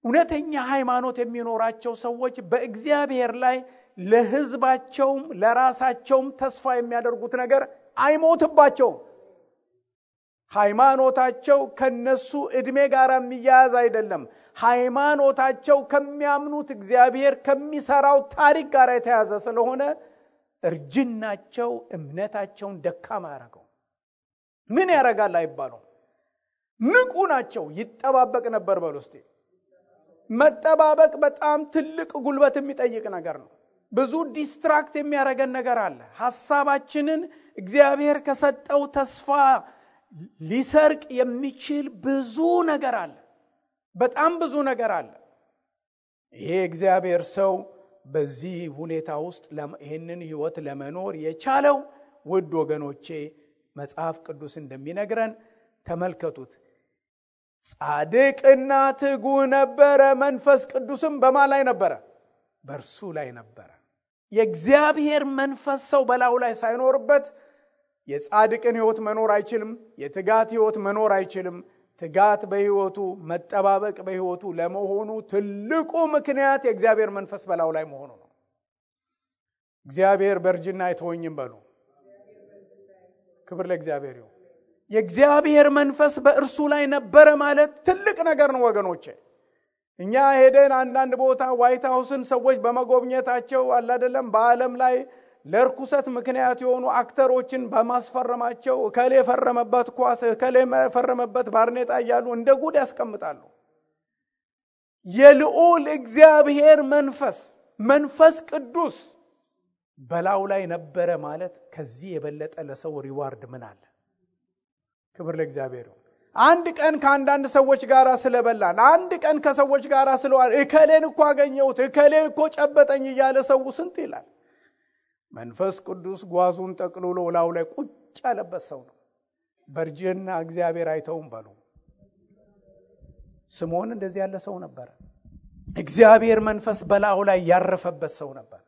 እውነተኛ ሃይማኖት የሚኖራቸው ሰዎች በእግዚአብሔር ላይ ለሕዝባቸውም ለራሳቸውም ተስፋ የሚያደርጉት ነገር አይሞትባቸውም። ሃይማኖታቸው ከነሱ እድሜ ጋር የሚያያዝ አይደለም። ሃይማኖታቸው ከሚያምኑት እግዚአብሔር ከሚሰራው ታሪክ ጋር የተያዘ ስለሆነ እርጅናቸው እምነታቸውን ደካማ ያደርገው። ምን ያደርጋል አይባሉም። ንቁ ናቸው። ይጠባበቅ ነበር በሉ እስቲ። መጠባበቅ በጣም ትልቅ ጉልበት የሚጠይቅ ነገር ነው። ብዙ ዲስትራክት የሚያደርገን ነገር አለ። ሐሳባችንን እግዚአብሔር ከሰጠው ተስፋ ሊሰርቅ የሚችል ብዙ ነገር አለ። በጣም ብዙ ነገር አለ። ይሄ እግዚአብሔር ሰው በዚህ ሁኔታ ውስጥ ይህንን ህይወት ለመኖር የቻለው ውድ ወገኖቼ መጽሐፍ ቅዱስ እንደሚነግረን ተመልከቱት። ጻድቅና ትጉ ነበረ፣ መንፈስ ቅዱስም በማን ላይ ነበረ? በእርሱ ላይ ነበረ። የእግዚአብሔር መንፈስ ሰው በላዩ ላይ ሳይኖርበት የጻድቅን ህይወት መኖር አይችልም። የትጋት ህይወት መኖር አይችልም። ትጋት በህይወቱ መጠባበቅ በህይወቱ ለመሆኑ ትልቁ ምክንያት የእግዚአብሔር መንፈስ በላዩ ላይ መሆኑ ነው። እግዚአብሔር በእርጅና አይተወኝም በሉ። ክብር ለእግዚአብሔር ይሁን። የእግዚአብሔር መንፈስ በእርሱ ላይ ነበረ ማለት ትልቅ ነገር ነው ወገኖቼ። እኛ ሄደን አንዳንድ ቦታ ዋይት ሃውስን ሰዎች በመጎብኘታቸው አላደለም በዓለም ላይ ለርኩሰት ምክንያት የሆኑ አክተሮችን በማስፈረማቸው ከሌ ፈረመበት ኳስ ከሌ ፈረመበት ባርኔጣ እያሉ እንደ ጉድ ያስቀምጣሉ። የልዑል እግዚአብሔር መንፈስ ቅዱስ በላዩ ላይ ነበረ ማለት ከዚህ የበለጠ ለሰው ሪዋርድ ምን አለ? ክብር ለእግዚአብሔር። አንድ ቀን ከአንዳንድ ሰዎች ጋር ስለበላን፣ አንድ ቀን ከሰዎች ጋር ስለዋል እከሌን እኮ አገኘሁት እከሌን እኮ ጨበጠኝ እያለ ሰው ስንት ይላል። መንፈስ ቅዱስ ጓዙን ጠቅልሎ ላዩ ላይ ቁጭ ያለበት ሰው ነው። በርጅና እግዚአብሔር አይተውም በሉ። ስምዖን እንደዚህ ያለ ሰው ነበር። እግዚአብሔር መንፈስ በላዩ ላይ ያረፈበት ሰው ነበር።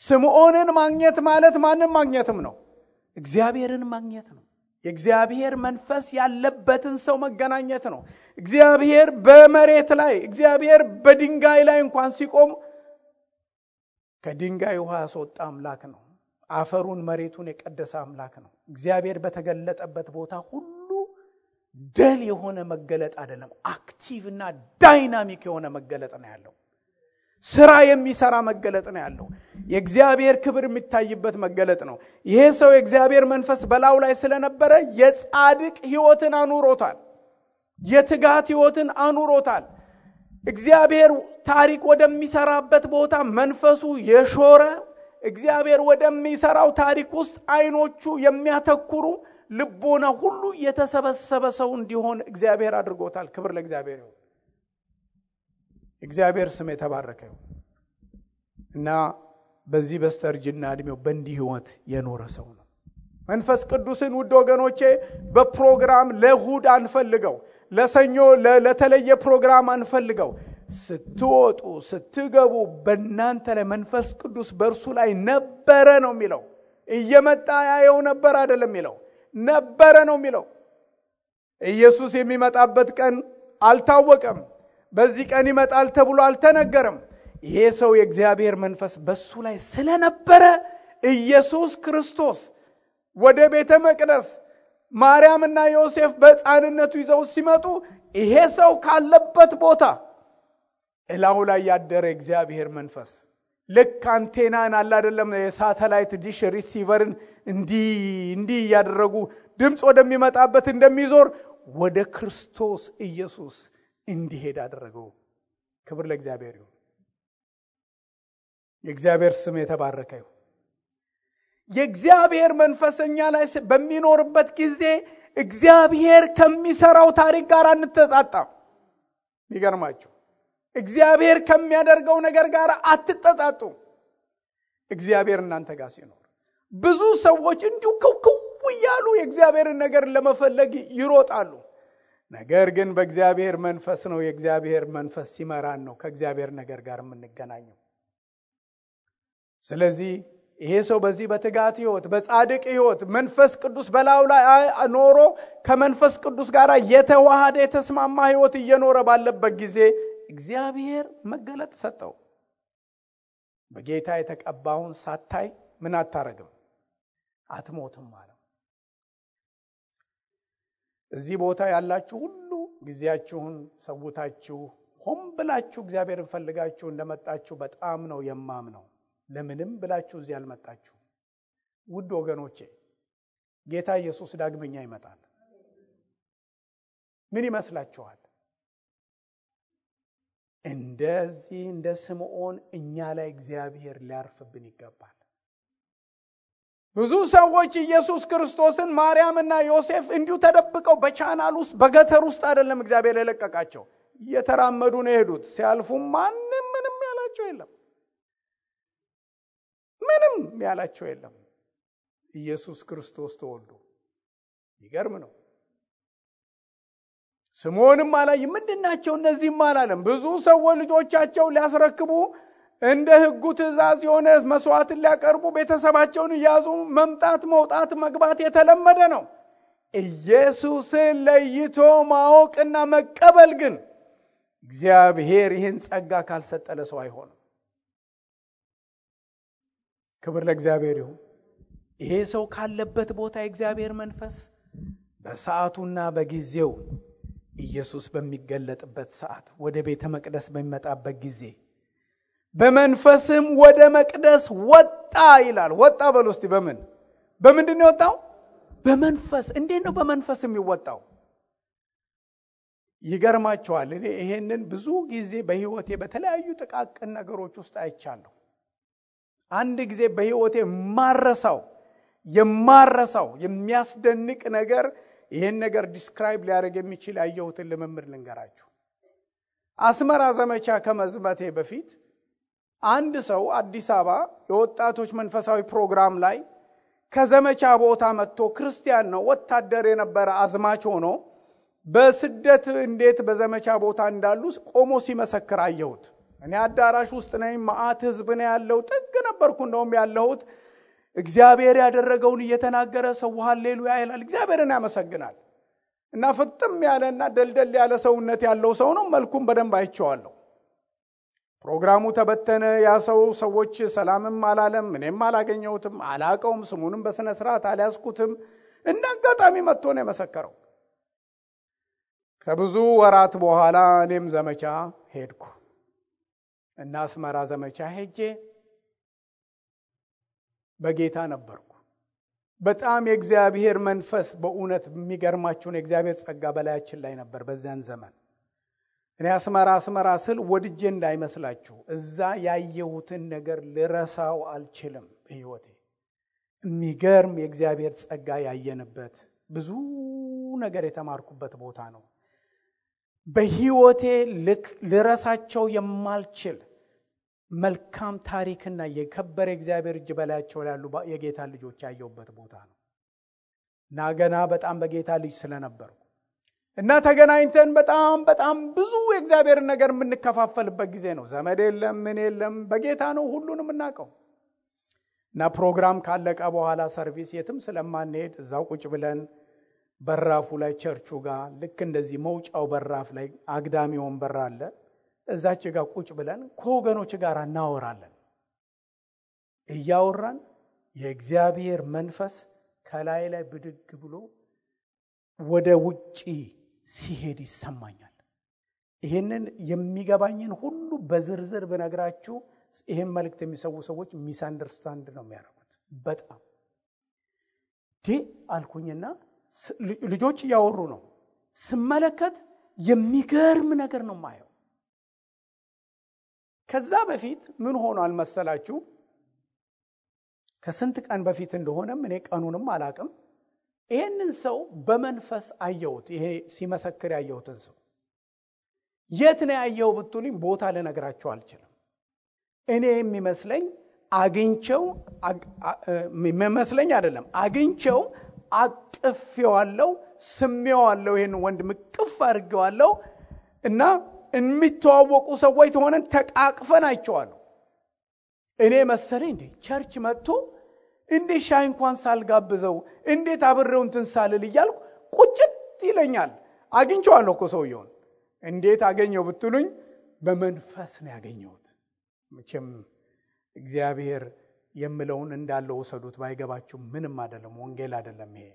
ስምዖንን ማግኘት ማለት ማንን ማግኘትም ነው? እግዚአብሔርን ማግኘት ነው። የእግዚአብሔር መንፈስ ያለበትን ሰው መገናኘት ነው። እግዚአብሔር በመሬት ላይ እግዚአብሔር በድንጋይ ላይ እንኳን ሲቆም ከድንጋይ ውሃ ያስወጣ አምላክ ነው። አፈሩን መሬቱን የቀደሰ አምላክ ነው። እግዚአብሔር በተገለጠበት ቦታ ሁሉ ደል የሆነ መገለጥ አይደለም፣ አክቲቭ እና ዳይናሚክ የሆነ መገለጥ ነው ያለው። ስራ የሚሰራ መገለጥ ነው ያለው። የእግዚአብሔር ክብር የሚታይበት መገለጥ ነው። ይሄ ሰው የእግዚአብሔር መንፈስ በላዩ ላይ ስለነበረ የጻድቅ ሕይወትን አኑሮታል። የትጋት ሕይወትን አኑሮታል። እግዚአብሔር ታሪክ ወደሚሰራበት ቦታ መንፈሱ የሾረ እግዚአብሔር ወደሚሰራው ታሪክ ውስጥ አይኖቹ የሚያተኩሩ ልቦና ሁሉ የተሰበሰበ ሰው እንዲሆን እግዚአብሔር አድርጎታል። ክብር ለእግዚአብሔር ይሁን። እግዚአብሔር ስም የተባረከ ይሁን። እና በዚህ በስተርጅና እድሜው በእንዲህ ሕይወት የኖረ ሰው ነው። መንፈስ ቅዱስን ውድ ወገኖቼ በፕሮግራም ለእሁድ አንፈልገው፣ ለሰኞ ለተለየ ፕሮግራም አንፈልገው። ስትወጡ ስትገቡ በእናንተ ላይ መንፈስ ቅዱስ በእርሱ ላይ ነበረ ነው የሚለው። እየመጣ ያየው ነበር አይደለም የሚለው፣ ነበረ ነው የሚለው። ኢየሱስ የሚመጣበት ቀን አልታወቀም። በዚህ ቀን ይመጣል ተብሎ አልተነገረም። ይሄ ሰው የእግዚአብሔር መንፈስ በሱ ላይ ስለነበረ ኢየሱስ ክርስቶስ ወደ ቤተ መቅደስ ማርያምና ዮሴፍ በሕፃንነቱ ይዘው ሲመጡ ይሄ ሰው ካለበት ቦታ እላው ላይ ያደረ እግዚአብሔር መንፈስ ልክ አንቴናን አለ አይደለም፣ የሳተላይት ዲሽ ሪሲቨርን እንዲህ ያደረጉ ድምጽ ወደሚመጣበት እንደሚዞር ወደ ክርስቶስ ኢየሱስ እንዲሄድ አደረገው። ክብር ለእግዚአብሔር ይሁን። የእግዚአብሔር ስም የተባረከ ይሁን። የእግዚአብሔር መንፈስኛ ላይ በሚኖርበት ጊዜ እግዚአብሔር ከሚሰራው ታሪክ ጋር አንተጣጣም። ይገርማችሁ፣ እግዚአብሔር ከሚያደርገው ነገር ጋር አትተጣጡ። እግዚአብሔር እናንተ ጋር ሲኖር ብዙ ሰዎች እንዲሁ ከው ያሉ የእግዚአብሔርን ነገር ለመፈለግ ይሮጣሉ። ነገር ግን በእግዚአብሔር መንፈስ ነው። የእግዚአብሔር መንፈስ ሲመራን ነው ከእግዚአብሔር ነገር ጋር የምንገናኘው። ስለዚህ ይሄ ሰው በዚህ በትጋት ሕይወት በጻድቅ ሕይወት መንፈስ ቅዱስ በላዩ ላይ ኖሮ ከመንፈስ ቅዱስ ጋር የተዋሃደ የተስማማ ሕይወት እየኖረ ባለበት ጊዜ እግዚአብሔር መገለጥ ሰጠው። በጌታ የተቀባውን ሳታይ ምን አታረግም? አትሞትም ማለት። እዚህ ቦታ ያላችሁ ሁሉ ጊዜያችሁን ሰውታችሁ ሆም ብላችሁ እግዚአብሔርን ፈልጋችሁ እንደመጣችሁ በጣም ነው የማምነው። ለምንም ብላችሁ እዚህ አልመጣችሁ። ውድ ወገኖቼ ጌታ ኢየሱስ ዳግመኛ ይመጣል። ምን ይመስላችኋል? እንደዚህ እንደ ስምዖን እኛ ላይ እግዚአብሔር ሊያርፍብን ይገባል። ብዙ ሰዎች ኢየሱስ ክርስቶስን ማርያምና ዮሴፍ እንዲሁ ተደብቀው በቻናል ውስጥ በገተር ውስጥ አይደለም እግዚአብሔር የለቀቃቸው፣ እየተራመዱ ነው የሄዱት። ሲያልፉ ማንም ምንም ያላቸው የለም። ምንም ያላቸው የለም። ኢየሱስ ክርስቶስ ተወልዶ ይገርም ነው። ስምዖንም አላይ ምንድናቸው እነዚህም አላለም። ብዙ ሰዎች ልጆቻቸው ሊያስረክቡ እንደ ሕጉ ትእዛዝ የሆነ መስዋዕትን ሊያቀርቡ ቤተሰባቸውን ይያዙ መምጣት መውጣት መግባት የተለመደ ነው። ኢየሱስን ለይቶ ማወቅና መቀበል ግን እግዚአብሔር ይህን ጸጋ ካልሰጠ ለሰው አይሆንም። ክብር ለእግዚአብሔር ይሁን። ይሄ ሰው ካለበት ቦታ የእግዚአብሔር መንፈስ በሰዓቱና በጊዜው ኢየሱስ በሚገለጥበት ሰዓት ወደ ቤተ መቅደስ በሚመጣበት ጊዜ በመንፈስም ወደ መቅደስ ወጣ ይላል። ወጣ በሉ እስቲ። በምንድን ነው የወጣው? በመንፈስ። እንዴት ነው በመንፈስ የሚወጣው? ይገርማቸዋል። እኔ ይሄንን ብዙ ጊዜ በህይወቴ በተለያዩ ጥቃቅን ነገሮች ውስጥ አይቻለሁ። አንድ ጊዜ በህይወቴ የማረሳው የሚያስደንቅ ነገር፣ ይሄን ነገር ዲስክራይብ ሊያደርግ የሚችል ያየሁትን ልምምድ ልንገራችሁ። አስመራ ዘመቻ ከመዝመቴ በፊት አንድ ሰው አዲስ አበባ የወጣቶች መንፈሳዊ ፕሮግራም ላይ ከዘመቻ ቦታ መጥቶ ክርስቲያን ነው፣ ወታደር የነበረ አዝማች ሆኖ በስደት እንዴት በዘመቻ ቦታ እንዳሉ ቆሞ ሲመሰክር አየሁት። እኔ አዳራሽ ውስጥ ነኝ፣ ማአት ህዝብ ነው ያለው፣ ጥግ ነበርኩ እንደውም ያለሁት። እግዚአብሔር ያደረገውን እየተናገረ ሰው ሃሌሉያ ይላል፣ እግዚአብሔርን ያመሰግናል። እና ፍጥም ያለና ደልደል ያለ ሰውነት ያለው ሰው ነው። መልኩም በደንብ አይቼዋለሁ። ፕሮግራሙ ተበተነ። ያ ሰዎች ሰላምም አላለም፣ እኔም አላገኘሁትም፣ አላቀውም፣ ስሙንም በስነ ስርዓት አልያዝኩትም። እንደ አጋጣሚ መጥቶ ነው የመሰከረው። ከብዙ ወራት በኋላ እኔም ዘመቻ ሄድኩ እና አስመራ ዘመቻ ሄጄ በጌታ ነበርኩ። በጣም የእግዚአብሔር መንፈስ በእውነት የሚገርማችሁ ነው። የእግዚአብሔር ጸጋ በላያችን ላይ ነበር በዚያን ዘመን። እኔ አስመራ ስል ወድጄ እንዳይመስላችሁ፣ እዛ ያየሁትን ነገር ልረሳው አልችልም በህይወቴ። የሚገርም የእግዚአብሔር ጸጋ ያየንበት ብዙ ነገር የተማርኩበት ቦታ ነው። በህይወቴ ልረሳቸው የማልችል መልካም ታሪክና የከበረ እግዚአብሔር እጅ በላያቸው ያሉ የጌታ ልጆች ያየሁበት ቦታ ነው እና ገና በጣም በጌታ ልጅ ስለነበርኩ እና ተገናኝተን በጣም ብዙ የእግዚአብሔር ነገር የምንከፋፈልበት ጊዜ ነው። ዘመድ የለም፣ ምን የለም፣ በጌታ ነው ሁሉንም እናቀው። እና ፕሮግራም ካለቀ በኋላ ሰርቪስ የትም ስለማንሄድ እዛው ቁጭ ብለን በራፉ ላይ ቸርቹ ጋር ልክ እንደዚህ መውጫው በራፍ ላይ አግዳሚ ወንበር አለ። እዛች ጋር ቁጭ ብለን ከወገኖች ጋር እናወራለን። እያወራን የእግዚአብሔር መንፈስ ከላይ ላይ ብድግ ብሎ ወደ ውጪ ሲሄድ ይሰማኛል። ይሄንን የሚገባኝን ሁሉ በዝርዝር ብነግራችሁ ይሄን መልእክት የሚሰው ሰዎች ሚስ አንደርስታንድ ነው የሚያደርጉት። በጣም አልኩኝና ልጆች እያወሩ ነው። ስመለከት የሚገርም ነገር ነው ማየው። ከዛ በፊት ምን ሆኗል መሰላችሁ? ከስንት ቀን በፊት እንደሆነም እኔ ቀኑንም አላቅም። ይሄንን ሰው በመንፈስ አየሁት። ይሄ ሲመሰክር ያየሁትን ሰው የት ነው ያየው ብትሉኝ ቦታ ልነግራችሁ አልችልም። እኔ የሚመስለኝ አግኝቸው አግኝቸው አቅፌዋለሁ፣ ስሜዋለሁ። ይሄን ወንድም ቅፍ አድርጌዋለሁ እና የሚተዋወቁ ሰዎች ሆነን ተቃቅፈን አይቼዋለሁ። እኔ መሰለኝ እንዴ ቸርች መጥቶ እንዴ ሻይ እንኳን ሳልጋብዘው እንዴት አብሬው እንትን ሳልል እያልኩ ቁጭት ይለኛል። አግኝቼዋለሁ እኮ ሰውየውን። እንዴት አገኘው ብትሉኝ በመንፈስ ነው ያገኘሁት። መቼም እግዚአብሔር የምለውን እንዳለው ወሰዱት። ባይገባችሁ ምንም አይደለም፣ ወንጌል አይደለም ይሄ።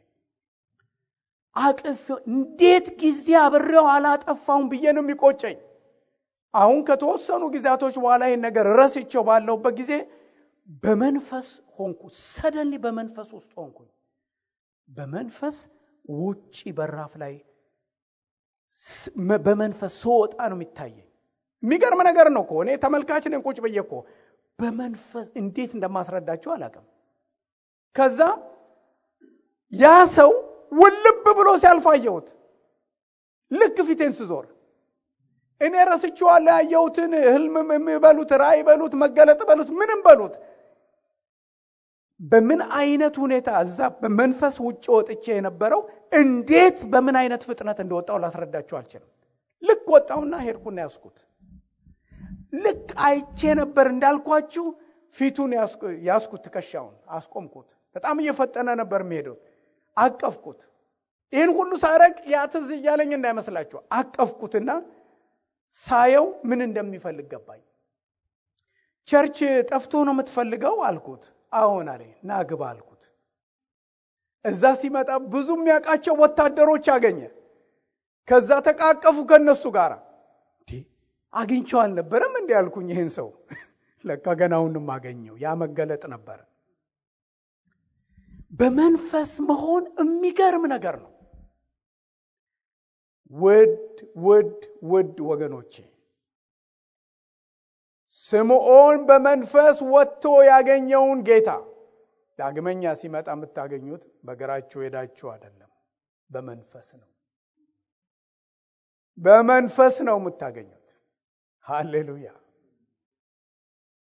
አቅፍ እንዴት ጊዜ አብሬው አላጠፋውም ብዬ ነው የሚቆጨኝ። አሁን ከተወሰኑ ጊዜያቶች በኋላ ይሄን ነገር ረስቼው ባለውበት ጊዜ በመንፈስ ሆንኩ። ሰደንሊ በመንፈስ ውስጥ ሆንኩኝ። በመንፈስ ውጪ በራፍ ላይ በመንፈስ ስወጣ ነው የሚታየኝ። የሚገርም ነገር ነው እኮ። እኔ ተመልካች ነኝ ቁጭ ብዬ እኮ በመንፈስ እንዴት እንደማስረዳችሁ አላውቅም። ከዛ ያ ሰው ውልብ ብሎ ሲያልፋየሁት ልክ ፊቴን ስዞር እኔ ረስቼዋለሁ ያየሁትን ህልም የሚበሉት ራእይ በሉት መገለጥ በሉት ምንም በሉት በምን አይነት ሁኔታ እዛ በመንፈስ ውጭ ወጥቼ የነበረው እንዴት በምን አይነት ፍጥነት እንደወጣው ላስረዳችሁ አልችልም። ልክ ወጣውና ሄድኩና ያስኩት ልክ አይቼ ነበር እንዳልኳችሁ ፊቱን ያስኩት ትከሻውን አስቆምኩት። በጣም እየፈጠነ ነበር የሚሄደው። አቀፍኩት። ይሄን ሁሉ ሳረቅ ያትዝ እያለኝ እንዳይመስላችሁ አቀፍኩትና ሳየው ምን እንደሚፈልግ ገባኝ። ቸርች ጠፍቶ ነው የምትፈልገው አልኩት። አዎን አለኝ። ና ግባ አልኩት። እዛ ሲመጣ ብዙ የሚያውቃቸው ወታደሮች አገኘ። ከዛ ተቃቀፉ ከነሱ ጋር። አግኝቼው አልነበረም እንዴ አልኩኝ። ይሄን ሰው ለካ ገናውንም አገኘው። ያ መገለጥ ነበር። በመንፈስ መሆን የሚገርም ነገር ነው። ውድ ወገኖቼ ስምዖን በመንፈስ ወጥቶ ያገኘውን ጌታ ዳግመኛ ሲመጣ የምታገኙት በእግራችሁ ሄዳችሁ አይደለም፣ በመንፈስ ነው። በመንፈስ ነው የምታገኙት። ሃሌሉያ።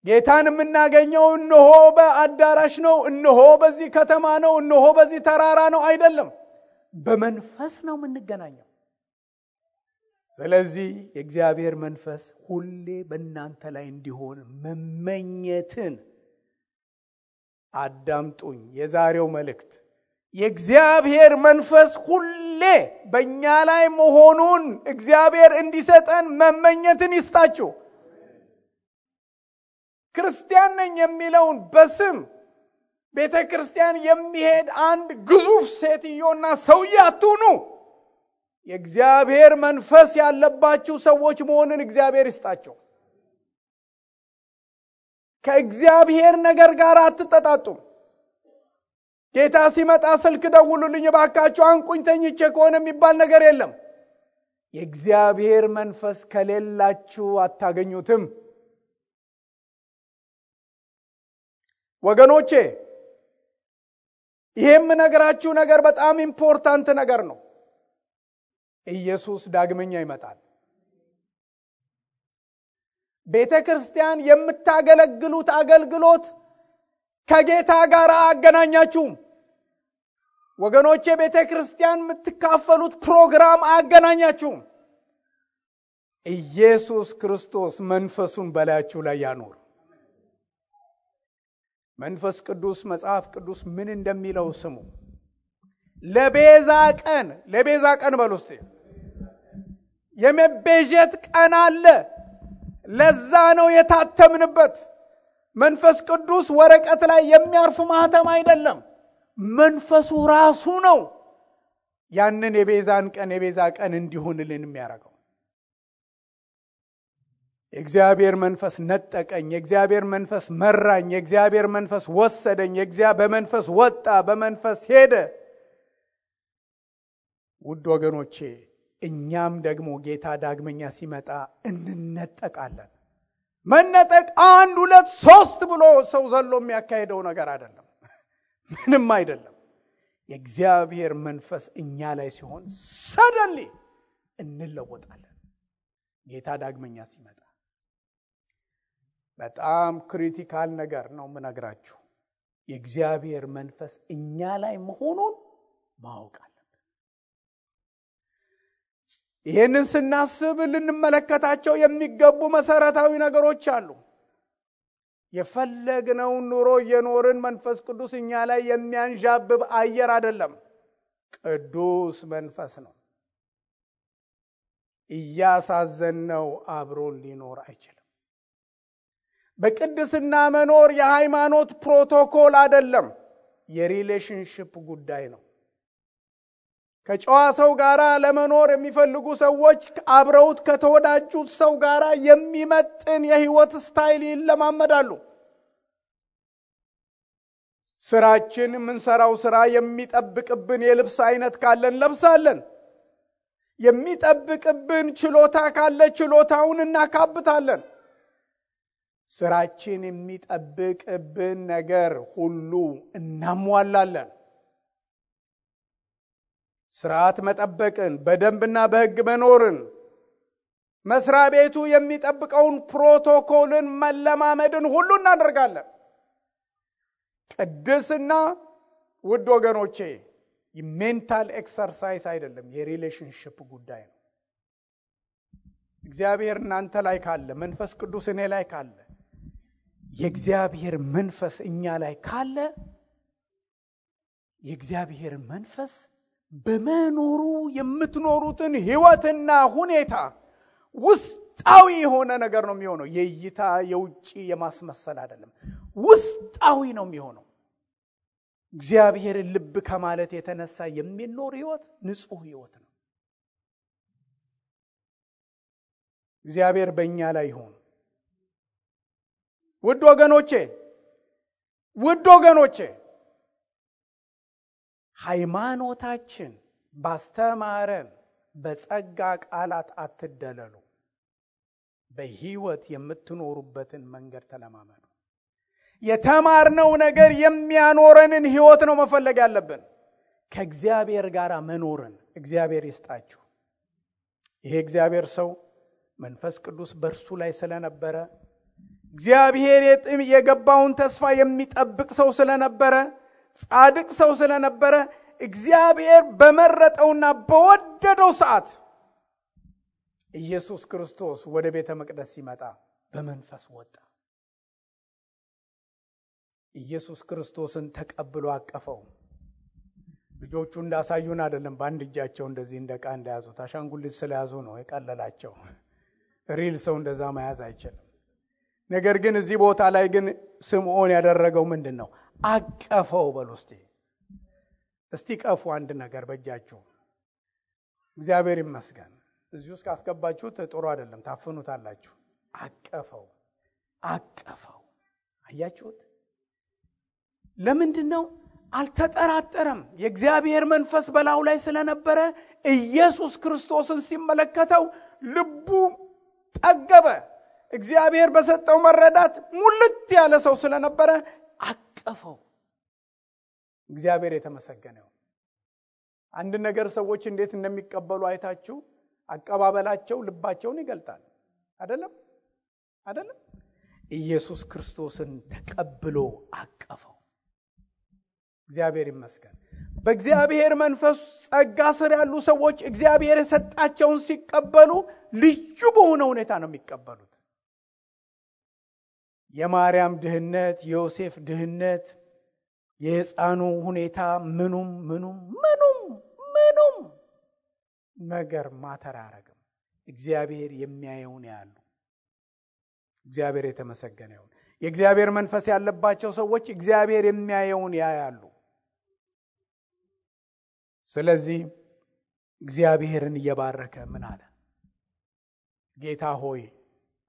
ጌታን የምናገኘው እነሆ በአዳራሽ ነው፣ እነሆ በዚህ ከተማ ነው፣ እነሆ በዚህ ተራራ ነው አይደለም፣ በመንፈስ ነው የምንገናኘው። ስለዚህ የእግዚአብሔር መንፈስ ሁሌ በእናንተ ላይ እንዲሆን መመኘትን አዳምጡኝ። የዛሬው መልእክት የእግዚአብሔር መንፈስ ሁሌ በእኛ ላይ መሆኑን እግዚአብሔር እንዲሰጠን መመኘትን ይስጣችሁ። ክርስቲያን ነኝ የሚለውን በስም ቤተ ክርስቲያን የሚሄድ አንድ ግዙፍ ሴትዮና ሰውዬ አትሁኑ። የእግዚአብሔር መንፈስ ያለባችሁ ሰዎች መሆንን እግዚአብሔር ይስጣችሁ። ከእግዚአብሔር ነገር ጋር አትጠጣጡም። ጌታ ሲመጣ ስልክ ደውሉልኝ እባካችሁ አንቁኝ ተኝቼ ከሆነ የሚባል ነገር የለም። የእግዚአብሔር መንፈስ ከሌላችሁ አታገኙትም። ወገኖቼ ይሄም ነገራችሁ ነገር በጣም ኢምፖርታንት ነገር ነው። ኢየሱስ ዳግመኛ ይመጣል። ቤተ ክርስቲያን የምታገለግሉት አገልግሎት ከጌታ ጋር አገናኛችሁም። ወገኖቼ ቤተ ክርስቲያን የምትካፈሉት ፕሮግራም አገናኛችሁም። ኢየሱስ ክርስቶስ መንፈሱን በላያችሁ ላይ ያኖር። መንፈስ ቅዱስ መጽሐፍ ቅዱስ ምን እንደሚለው ስሙ። ለቤዛ ቀን በሉስቲ የመቤዠት ቀን አለ። ለዛ ነው የታተምንበት። መንፈስ ቅዱስ ወረቀት ላይ የሚያርፍ ማህተም አይደለም። መንፈሱ ራሱ ነው ያንን የቤዛ ቀን እንዲሆንልን የሚያደርገው። የእግዚአብሔር መንፈስ ነጠቀኝ፣ የእግዚአብሔር መንፈስ መራኝ፣ የእግዚአብሔር መንፈስ ወሰደኝ፣ በመንፈስ ወጣ፣ በመንፈስ ሄደ። ውድ ወገኖቼ እኛም ደግሞ ጌታ ዳግመኛ ሲመጣ እንነጠቃለን። መነጠቅ 1 2 3 ብሎ ሰው ዘሎ የሚያካሄደው ነገር አይደለም። ምንም አይደለም። የእግዚአብሔር መንፈስ እኛ ላይ ሲሆን ሰደንሊ እንለወጣለን። ጌታ ዳግመኛ ሲመጣ በጣም ክሪቲካል ነገር ነው የምነግራችሁ። የእግዚአብሔር መንፈስ እኛ ላይ መሆኑን ማወቅ አለብን። ይህንን ስናስብ ልንመለከታቸው የሚገቡ መሰረታዊ ነገሮች አሉ። የፈለግነውን ኑሮ እየኖርን መንፈስ ቅዱስ እኛ ላይ የሚያንዣብብ አየር አይደለም። ቅዱስ መንፈስ ነው። እያሳዘነው አብሮን ሊኖር አይችልም። በቅድስና መኖር የሃይማኖት ፕሮቶኮል አይደለም፣ የሪሌሽንሺፕ ጉዳይ ነው። ከጨዋ ሰው ጋራ ለመኖር የሚፈልጉ ሰዎች አብረውት ከተወዳጁት ሰው ጋራ የሚመጥን የህይወት ስታይል ይለማመዳሉ። ስራችን የምንሰራው ስራ የሚጠብቅብን የልብስ አይነት ካለን ለብሳለን። የሚጠብቅብን ችሎታ ካለ ችሎታውን እናካብታለን። ስራችን የሚጠብቅብን ነገር ሁሉ እናሟላለን። ስርዓት መጠበቅን፣ በደንብና በህግ መኖርን፣ መስሪያ ቤቱ የሚጠብቀውን ፕሮቶኮልን መለማመድን ሁሉ እናደርጋለን። ቅድስና ውድ ወገኖቼ የሜንታል ኤክሰርሳይዝ አይደለም፣ የሪሌሽንሺፕ ጉዳይ ነው። እግዚአብሔር እናንተ ላይ ካለ፣ መንፈስ ቅዱስ እኔ ላይ ካለ፣ የእግዚአብሔር መንፈስ እኛ ላይ ካለ የእግዚአብሔር መንፈስ በመኖሩ የምትኖሩትን ህይወትና ሁኔታ ውስጣዊ የሆነ ነገር ነው የሚሆነው። የእይታ የውጪ የማስመሰል አይደለም፣ ውስጣዊ ነው የሚሆነው። እግዚአብሔር ልብ ከማለት የተነሳ የሚኖር ህይወት ንጹህ ህይወት ነው። እግዚአብሔር በእኛ ላይ ይሁን። ውድ ወገኖቼ ሃይማኖታችን ባስተማረን በጸጋ ቃላት አትደለሉ። በህይወት የምትኖሩበትን መንገድ ተለማመዱ። የተማርነው ነገር የሚያኖረንን ህይወት ነው መፈለግ ያለብን። ከእግዚአብሔር ጋር መኖርን እግዚአብሔር ይስጣችሁ። ይሄ እግዚአብሔር ሰው መንፈስ ቅዱስ በእርሱ ላይ ስለነበረ እግዚአብሔር የገባውን ተስፋ የሚጠብቅ ሰው ስለነበረ ጻድቅ ሰው ስለነበረ እግዚአብሔር በመረጠውና በወደደው ሰዓት ኢየሱስ ክርስቶስ ወደ ቤተ መቅደስ ሲመጣ በመንፈስ ወጣ። ኢየሱስ ክርስቶስን ተቀብሎ አቀፈው። ልጆቹ እንዳሳዩን አይደለም በአንድ እጃቸው እንደዚህ እንደቃ እንደያዙ ታሻንጉሊት ስለያዙ ነው የቀለላቸው። ሪል ሰው እንደዛ መያዝ አይችልም። ነገር ግን እዚህ ቦታ ላይ ግን ስምዖን ያደረገው ምንድነው? አቀፈው። በሉ እስቲ ቀፉ አንድ ነገር በእጃችሁ። እግዚአብሔር ይመስገን። እዚህ ውስጥ ካስገባችሁት ጥሩ አይደለም ታፈኑታላችሁ። አቀፈው። አያችሁት? ለምንድነው? አልተጠራጠረም። የእግዚአብሔር መንፈስ በላዩ ላይ ስለነበረ ኢየሱስ ክርስቶስን ሲመለከተው ልቡ ጠገበ። እግዚአብሔር በሰጠው መረዳት ሙልት ያለ ሰው ስለነበረ አቀፈው። እግዚአብሔር የተመሰገነው። አንድ ነገር ሰዎች እንዴት እንደሚቀበሉ አይታችሁ አቀባበላቸው ልባቸውን ይገልጣል። አይደለም? ኢየሱስ ክርስቶስን ተቀብሎ አቀፈው። እግዚአብሔር ይመስገን። በእግዚአብሔር መንፈስ ጸጋ ስር ያሉ ሰዎች እግዚአብሔር የሰጣቸውን ሲቀበሉ ልዩ በሆነ ሁኔታ ነው የሚቀበሉት። የማርያም ድህነት፣ የዮሴፍ ድህነት፣ የሕፃኑ ሁኔታ ምኑም ነገር ማተር አያረግም። እግዚአብሔር የሚያየውን ያያሉ። እግዚአብሔር የተመሰገነ ይሁን። የእግዚአብሔር መንፈስ ያለባቸው ሰዎች እግዚአብሔር የሚያየውን ያያሉ። ስለዚህ እግዚአብሔርን እየባረከ ምን አለ? ጌታ ሆይ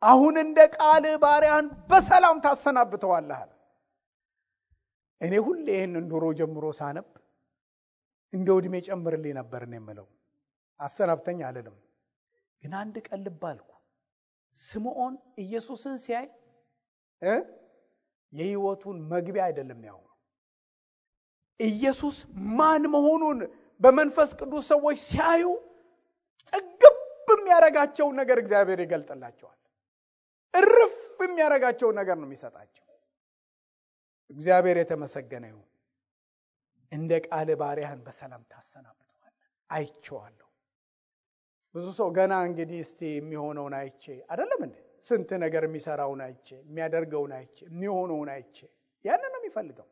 አሁን እንደ ቃል ባሪያን በሰላም ታሰናብተዋለህ አለ። እኔ ሁሌ ይሄንን ድሮ ጀምሮ ሳነብ እንደው እድሜ ጨምርልኝ ነበር ነው የምለው። አሰናብተኝ አልልም። ግን አንድ ቀን ልብ አልኩ። ስምዖን ኢየሱስን ሲያይ የህይወቱን መግቢያ አይደለም ያው ኢየሱስ ማን መሆኑን በመንፈስ ቅዱስ ሰዎች ሲያዩ ጥግብ የሚያረጋቸው ነገር እግዚአብሔር ይገልጥላቸዋል። እርፍ የሚያረጋቸው ነገር ነው የሚሰጣቸው። እግዚአብሔር የተመሰገነ ይሁን። እንደ ቃል ባሪያህን በሰላም ታሰናብተዋለህ። አይቼዋለሁ። ብዙ ሰው ገና እንግዲህ እስቲ የሚሆነውን አይቼ አይደለም እንዴ? ስንት ነገር የሚሰራውን አይቼ፣ የሚያደርገውን አይቼ፣ የሚሆነውን አይቼ ያንን ነው የሚፈልገው።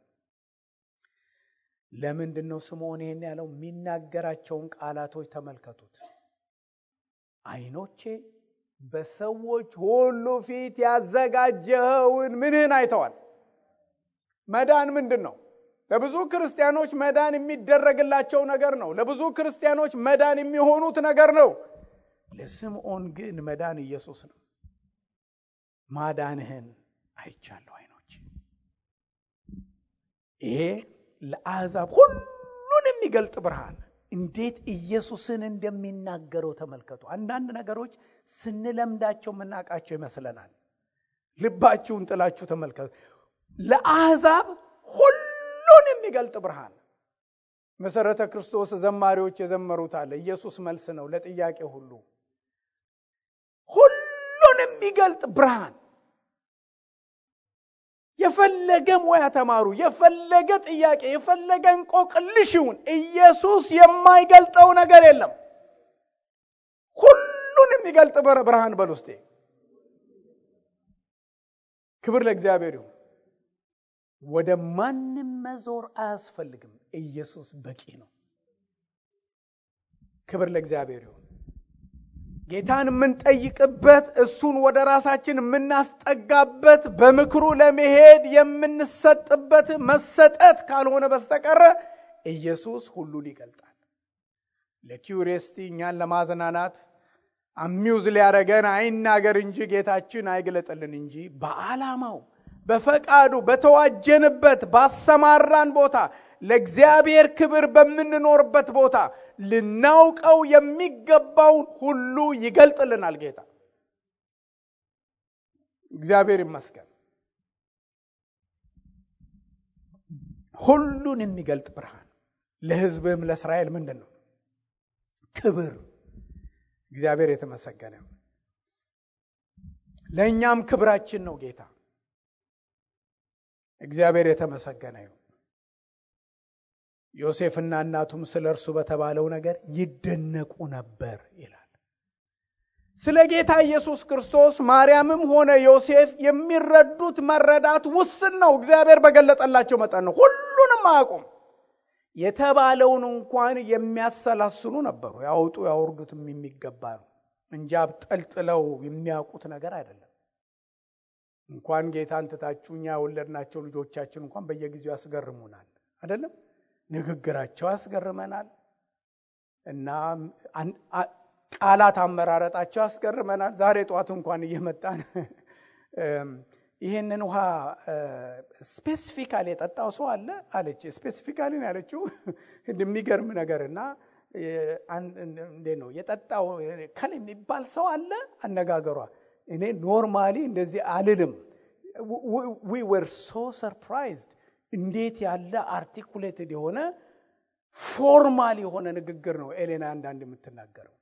ለምንድነው ስምዖን ይሄን ያለው? የሚናገራቸውን ቃላቶች ተመልከቱት። አይኖቼ በሰዎች ሁሉ ፊት ያዘጋጀውን ምንህን አይተዋል። መዳን ምንድነው? ለብዙ ክርስቲያኖች መዳን የሚደረግላቸው ነገር ነው። ለብዙ ክርስቲያኖች መዳን የሚሆኑት ነገር ነው። ለስምዖን ግን መዳን ኢየሱስ ነው። ማዳንህን አይቻለሁ አይኖቼ። ይሄ ለአሕዛብ ሁሉን የሚገልጥ ብርሃን እንዴት ኢየሱስን እንደሚናገረው ተመልከቱ። አንዳንድ ነገሮች ስንለምዳቸው መናቃቸው ይመስለናል። ልባችሁን ጥላችሁ ተመልከቱ። ለአሕዛብ ሁሉን የሚገልጥ ብርሃን። መሰረተ ክርስቶስ ዘማሪዎች የዘመሩት አለ። ኢየሱስ መልስ ነው ለጥያቄ ሁሉ። ሁሉን የሚገልጥ ብርሃን። የፈለገ ሙያ ተማሩ፣ የፈለገ ጥያቄ፣ የፈለገ እንቆቅልሽ ይሁን፣ ኢየሱስ የማይገልጠው ነገር የለም። ሁሉን የሚገልጥ ብርሃን በልውስጤ። ክብር ለእግዚአብሔር ይሁን። ወደ ማንም መዞር አያስፈልግም። ኢየሱስ በቂ ነው። ክብር ለእግዚአብሔር ይሁን። ጌታን የምንጠይቅበት፣ እሱን ወደ ራሳችን የምናስጠጋበት፣ በምክሩ ለመሄድ የምንሰጥበት መሰጠት ካልሆነ በስተቀር ኢየሱስ ሁሉን ይገልጣል። ለኪዩሪየስቲ እኛን ለማዝናናት አሚውዝ ሊያረገን አይናገር እንጂ ጌታችን አይገለጥልን እንጂ በዓላማው በፈቃዱ በተዋጀንበት ባሰማራን ቦታ ለእግዚአብሔር ክብር በምንኖርበት ቦታ ልናውቀው የሚገባውን ሁሉ ይገልጥልናል ጌታ። እግዚአብሔር ይመስገን። ሁሉን የሚገልጥ ብርሃን ለሕዝብም ለእስራኤል ምንድነው? ክብር። እግዚአብሔር የተመሰገነ ነው። ለእኛም ክብራችን ነው ጌታ። እግዚአብሔር የተመሰገነ ነው። ዮሴፍና እናቱም ስለ እርሱ በተባለው ነገር ይደነቁ ነበር ይላል። ስለ ጌታ ኢየሱስ ክርስቶስ ማርያምም ሆነ ዮሴፍ የሚረዱት መረዳት ውስን ነው። እግዚአብሔር በገለጠላቸው መጠን ነው። ሁሉንም አያውቁም። የተባለውን እንኳን የሚያሰላስሉ ነበሩ። ያውጡ ያወርዱትም የሚገባ ነው እንጂ አብጠልጥለው የሚያውቁት ነገር አይደለም። እንኳን ጌታን ትታችሁ እኛ የወለድናቸው ልጆቻችን እንኳን በየጊዜው ያስገርሙናል አይደለም? ንግግራቸው ያስገርመናል እና ቃላት አመራረጣቸው ያስገርመናል። ዛሬ ጧት እንኳን እየመጣን ይሄንን ውሃ ስፔሲፊካሊ የጠጣው ሰው አለ አለች። ስፔሲፊካሊ ነው ያለችው። እንደሚገርም ነገርና እንዴ ነው የጠጣው ከለ የሚባል ሰው አለ አነጋገሯ። እኔ ኖርማሊ እንደዚህ አልልም። we were so surprised እንዴት ያለ አርቲኩሌትድ የሆነ ፎርማል የሆነ ንግግር ነው ኤሌና አንዳንድ የምትናገረው።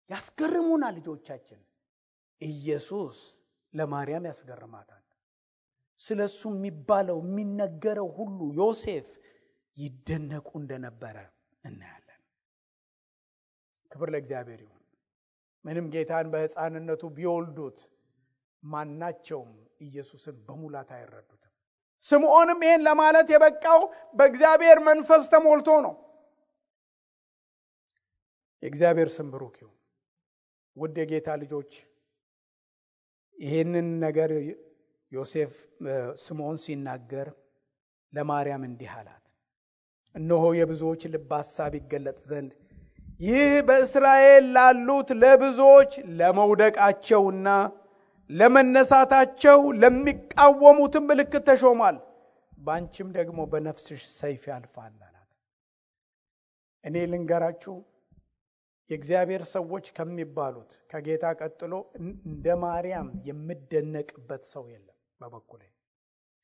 ያስገርሙናል ልጆቻችን። ኢየሱስ ለማርያም ያስገርማታል። ስለሱ የሚባለው የሚነገረው ሁሉ ዮሴፍ ይደነቁ እንደነበረ እናያለን። ክብር ለእግዚአብሔር ይሁን። ምንም ጌታን በሕፃንነቱ ቢወልዱት ማናቸውም ኢየሱስን በሙላት አይረዱትም። ስምዖንም ይሄን ለማለት የበቃው በእግዚአብሔር መንፈስ ተሞልቶ ነው። የእግዚአብሔር ስም ብሩክ ይሁን። ውድ የጌታ ልጆች ይሄንን ነገር ዮሴፍ ስምዖን ሲናገር ለማርያም እንዲህ አላት፣ እነሆ የብዙዎች ልብ ሐሳብ ይገለጥ ዘንድ ይህ በእስራኤል ላሉት ለብዙዎች ለመውደቃቸውና ለመነሳታቸው ለሚቃወሙትም ምልክት ተሾሟል። ባንቺም ደግሞ በነፍስሽ ሰይፍ ያልፋል አላት። እኔ ልንገራችሁ የእግዚአብሔር ሰዎች ከሚባሉት ከጌታ ቀጥሎ እንደ ማርያም የምደነቅበት ሰው የለም በበኩሌ።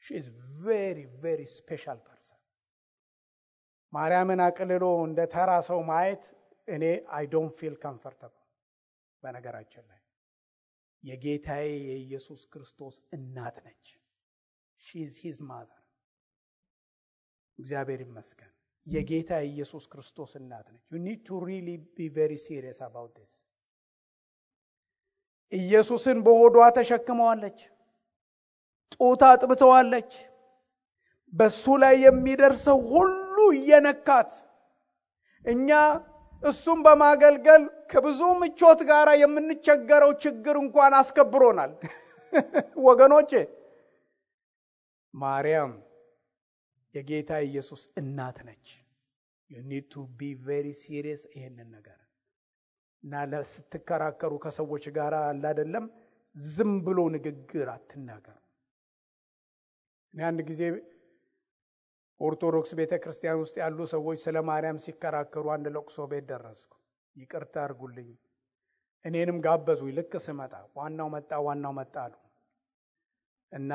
she is very very special person። ማርያምን አቅልሎ እንደ ተራ ሰው ማየት እኔ I don't feel comfortable። በነገራችን ላይ የጌታዬ የኢየሱስ ክርስቶስ እናት ነች። she is his mother። እግዚአብሔር ይመስገን። የጌታ ኢየሱስ ክርስቶስ እናት ነች። you need to really be very serious about this። ኢየሱስን በሆዷ ተሸክመዋለች፣ ጡት አጥብተዋለች። በሱ ላይ የሚደርሰው ሁሉ እየነካት እኛ እሱም በማገልገል ከብዙ ምቾት ጋር የምንቸገረው ችግር እንኳን አስከብሮናል። ወገኖቼ ማርያም የጌታ ኢየሱስ እናት ነች። you need to be very serious ይሄንን ነገር እና ለስትከራከሩ ከሰዎች ጋር አይደለም ዝም ብሎ ንግግር አትናገሩ። እኔ አንድ ጊዜ ኦርቶዶክስ ቤተክርስቲያን ውስጥ ያሉ ሰዎች ስለ ማርያም ሲከራከሩ አንድ ለቅሶ ቤት ደረስኩ። ይቅርታ አድርጉልኝ። እኔንም ጋበዙኝ። ልክ ስመጣ ዋናው መጣ አሉ እና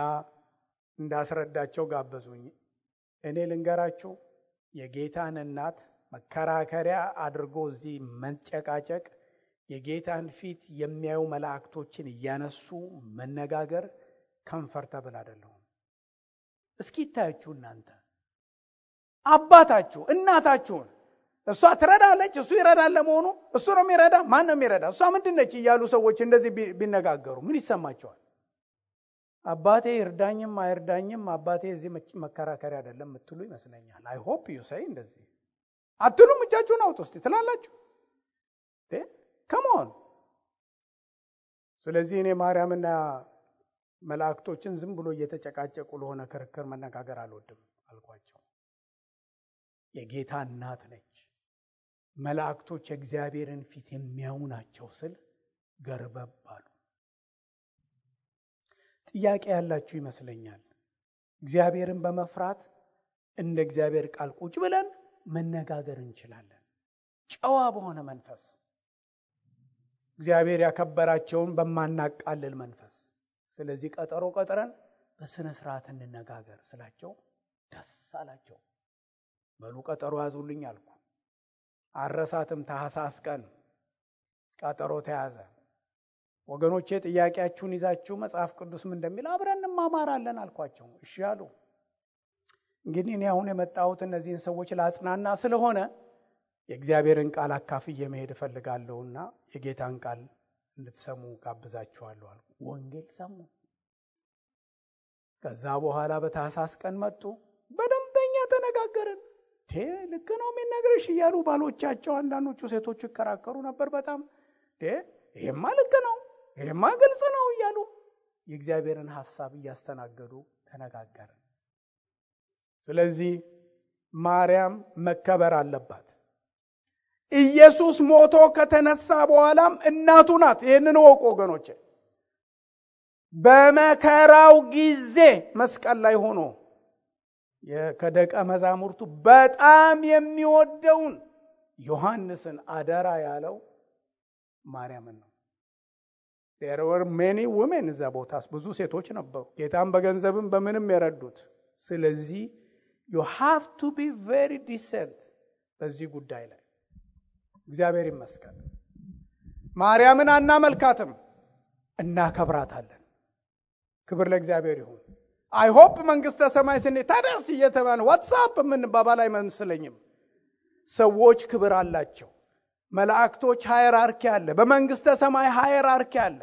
እንዳስረዳቸው ጋበዙኝ። እኔ ልንገራችሁ የጌታን እናት መከራከሪያ አድርጎ እዚህ መንጨቃጨቅ፣ የጌታን ፊት የሚያዩ መላእክቶችን እያነሱ መነጋገር ኮምፎርታብል አይደለም። እስኪ ታያችሁ እናንተ አባታችሁ እናታችሁን እሷ ትረዳለች፣ እሱ ይረዳል። ለመሆኑ እሱ ነው የሚረዳ? ማን ነው የሚረዳ? እሷ ምንድነች እያሉ ሰዎች እንደዚህ ቢነጋገሩ ምን ይሰማቸዋል? አባቴ ይርዳኝም አይርዳኝም አባቴ እዚህ መከራከሪያ አይደለም የምትሉ ይመስለኛል። I hope you say እንደዚህ አትሉም? እጃችሁን አውጡ እስቲ ትላላችሁ። come on። ስለዚህ እኔ ማርያምና መላእክቶችን ዝም ብሎ እየተጨቃጨቁ ለሆነ ክርክር መነጋገር አልወድም አልኳቸው። የጌታ እናት ነች። መላእክቶች የእግዚአብሔርን ፊት የሚያዩ ናቸው ስል ገርበብ አሉ። ጥያቄ ያላችሁ ይመስለኛል። እግዚአብሔርን በመፍራት እንደ እግዚአብሔር ቃል ቁጭ ብለን መነጋገር እንችላለን፣ ጨዋ በሆነ መንፈስ፣ እግዚአብሔር ያከበራቸውን በማናቃልል መንፈስ። ስለዚህ ቀጠሮ ቀጥረን በስነ ስርዓት እንነጋገር ስላቸው ደስ አላቸው። በሉ ቀጠሮ ያዙልኝ አልኩ። አረሳትም ታኅሳስ ቀን ቀጠሮ ተያዘ። ወገኖቼ ጥያቄያችሁን ይዛችሁ መጽሐፍ ቅዱስ ምን እንደሚል አብረን እንማማራለን አልኳቸው። እሺ አሉ። እንግዲህ እኔ አሁን የመጣሁት እነዚህን ሰዎች ላጽናና ስለሆነ የእግዚአብሔርን ቃል አካፍዬ መሄድ እፈልጋለሁና የጌታን ቃል እንድትሰሙ ጋብዛችኋለሁ አልኩ። ወንጌል ሰሙ። ከዛ በኋላ በታኅሳስ ቀን መጡ። በደንበኛ ተነጋገርን። ልክ ነው የሚነግርሽ እያሉ ባሎቻቸው አንዳንዶቹ ሴቶቹ ይከራከሩ ነበር። በጣም ይሄማ ልክ ነው፣ ይሄማ ግልጽ ነው እያሉ የእግዚአብሔርን ሐሳብ እያስተናገዱ ተነጋገርን። ስለዚህ ማርያም መከበር አለባት። ኢየሱስ ሞቶ ከተነሳ በኋላም እናቱ ናት። ይህንን ወቁ ወገኖቼ። በመከራው ጊዜ መስቀል ላይ ሆኖ ከደቀ መዛሙርቱ በጣም የሚወደውን ዮሐንስን አደራ ያለው ማርያምን ነው። there were many women እዛ ቦታስ ብዙ ሴቶች ነበሩ፣ ጌታን በገንዘብም በምንም የረዱት። ስለዚህ you have to be very decent በዚህ ጉዳይ ላይ። እግዚአብሔር ይመስገን። ማርያምን አናመልካትም፣ እናከብራታለን። ክብር ለእግዚአብሔር ይሁን። I hope መንግስተ ሰማይ ስንሄድ ታዲያስ እየተባለ ዋትስአፕ ምን ባባል አይመስለኝም። ሰዎች ክብር አላቸው። መላእክቶች ሃይራርኪ አለ፣ በመንግስተ ሰማይ ሃይራርኪ አለ።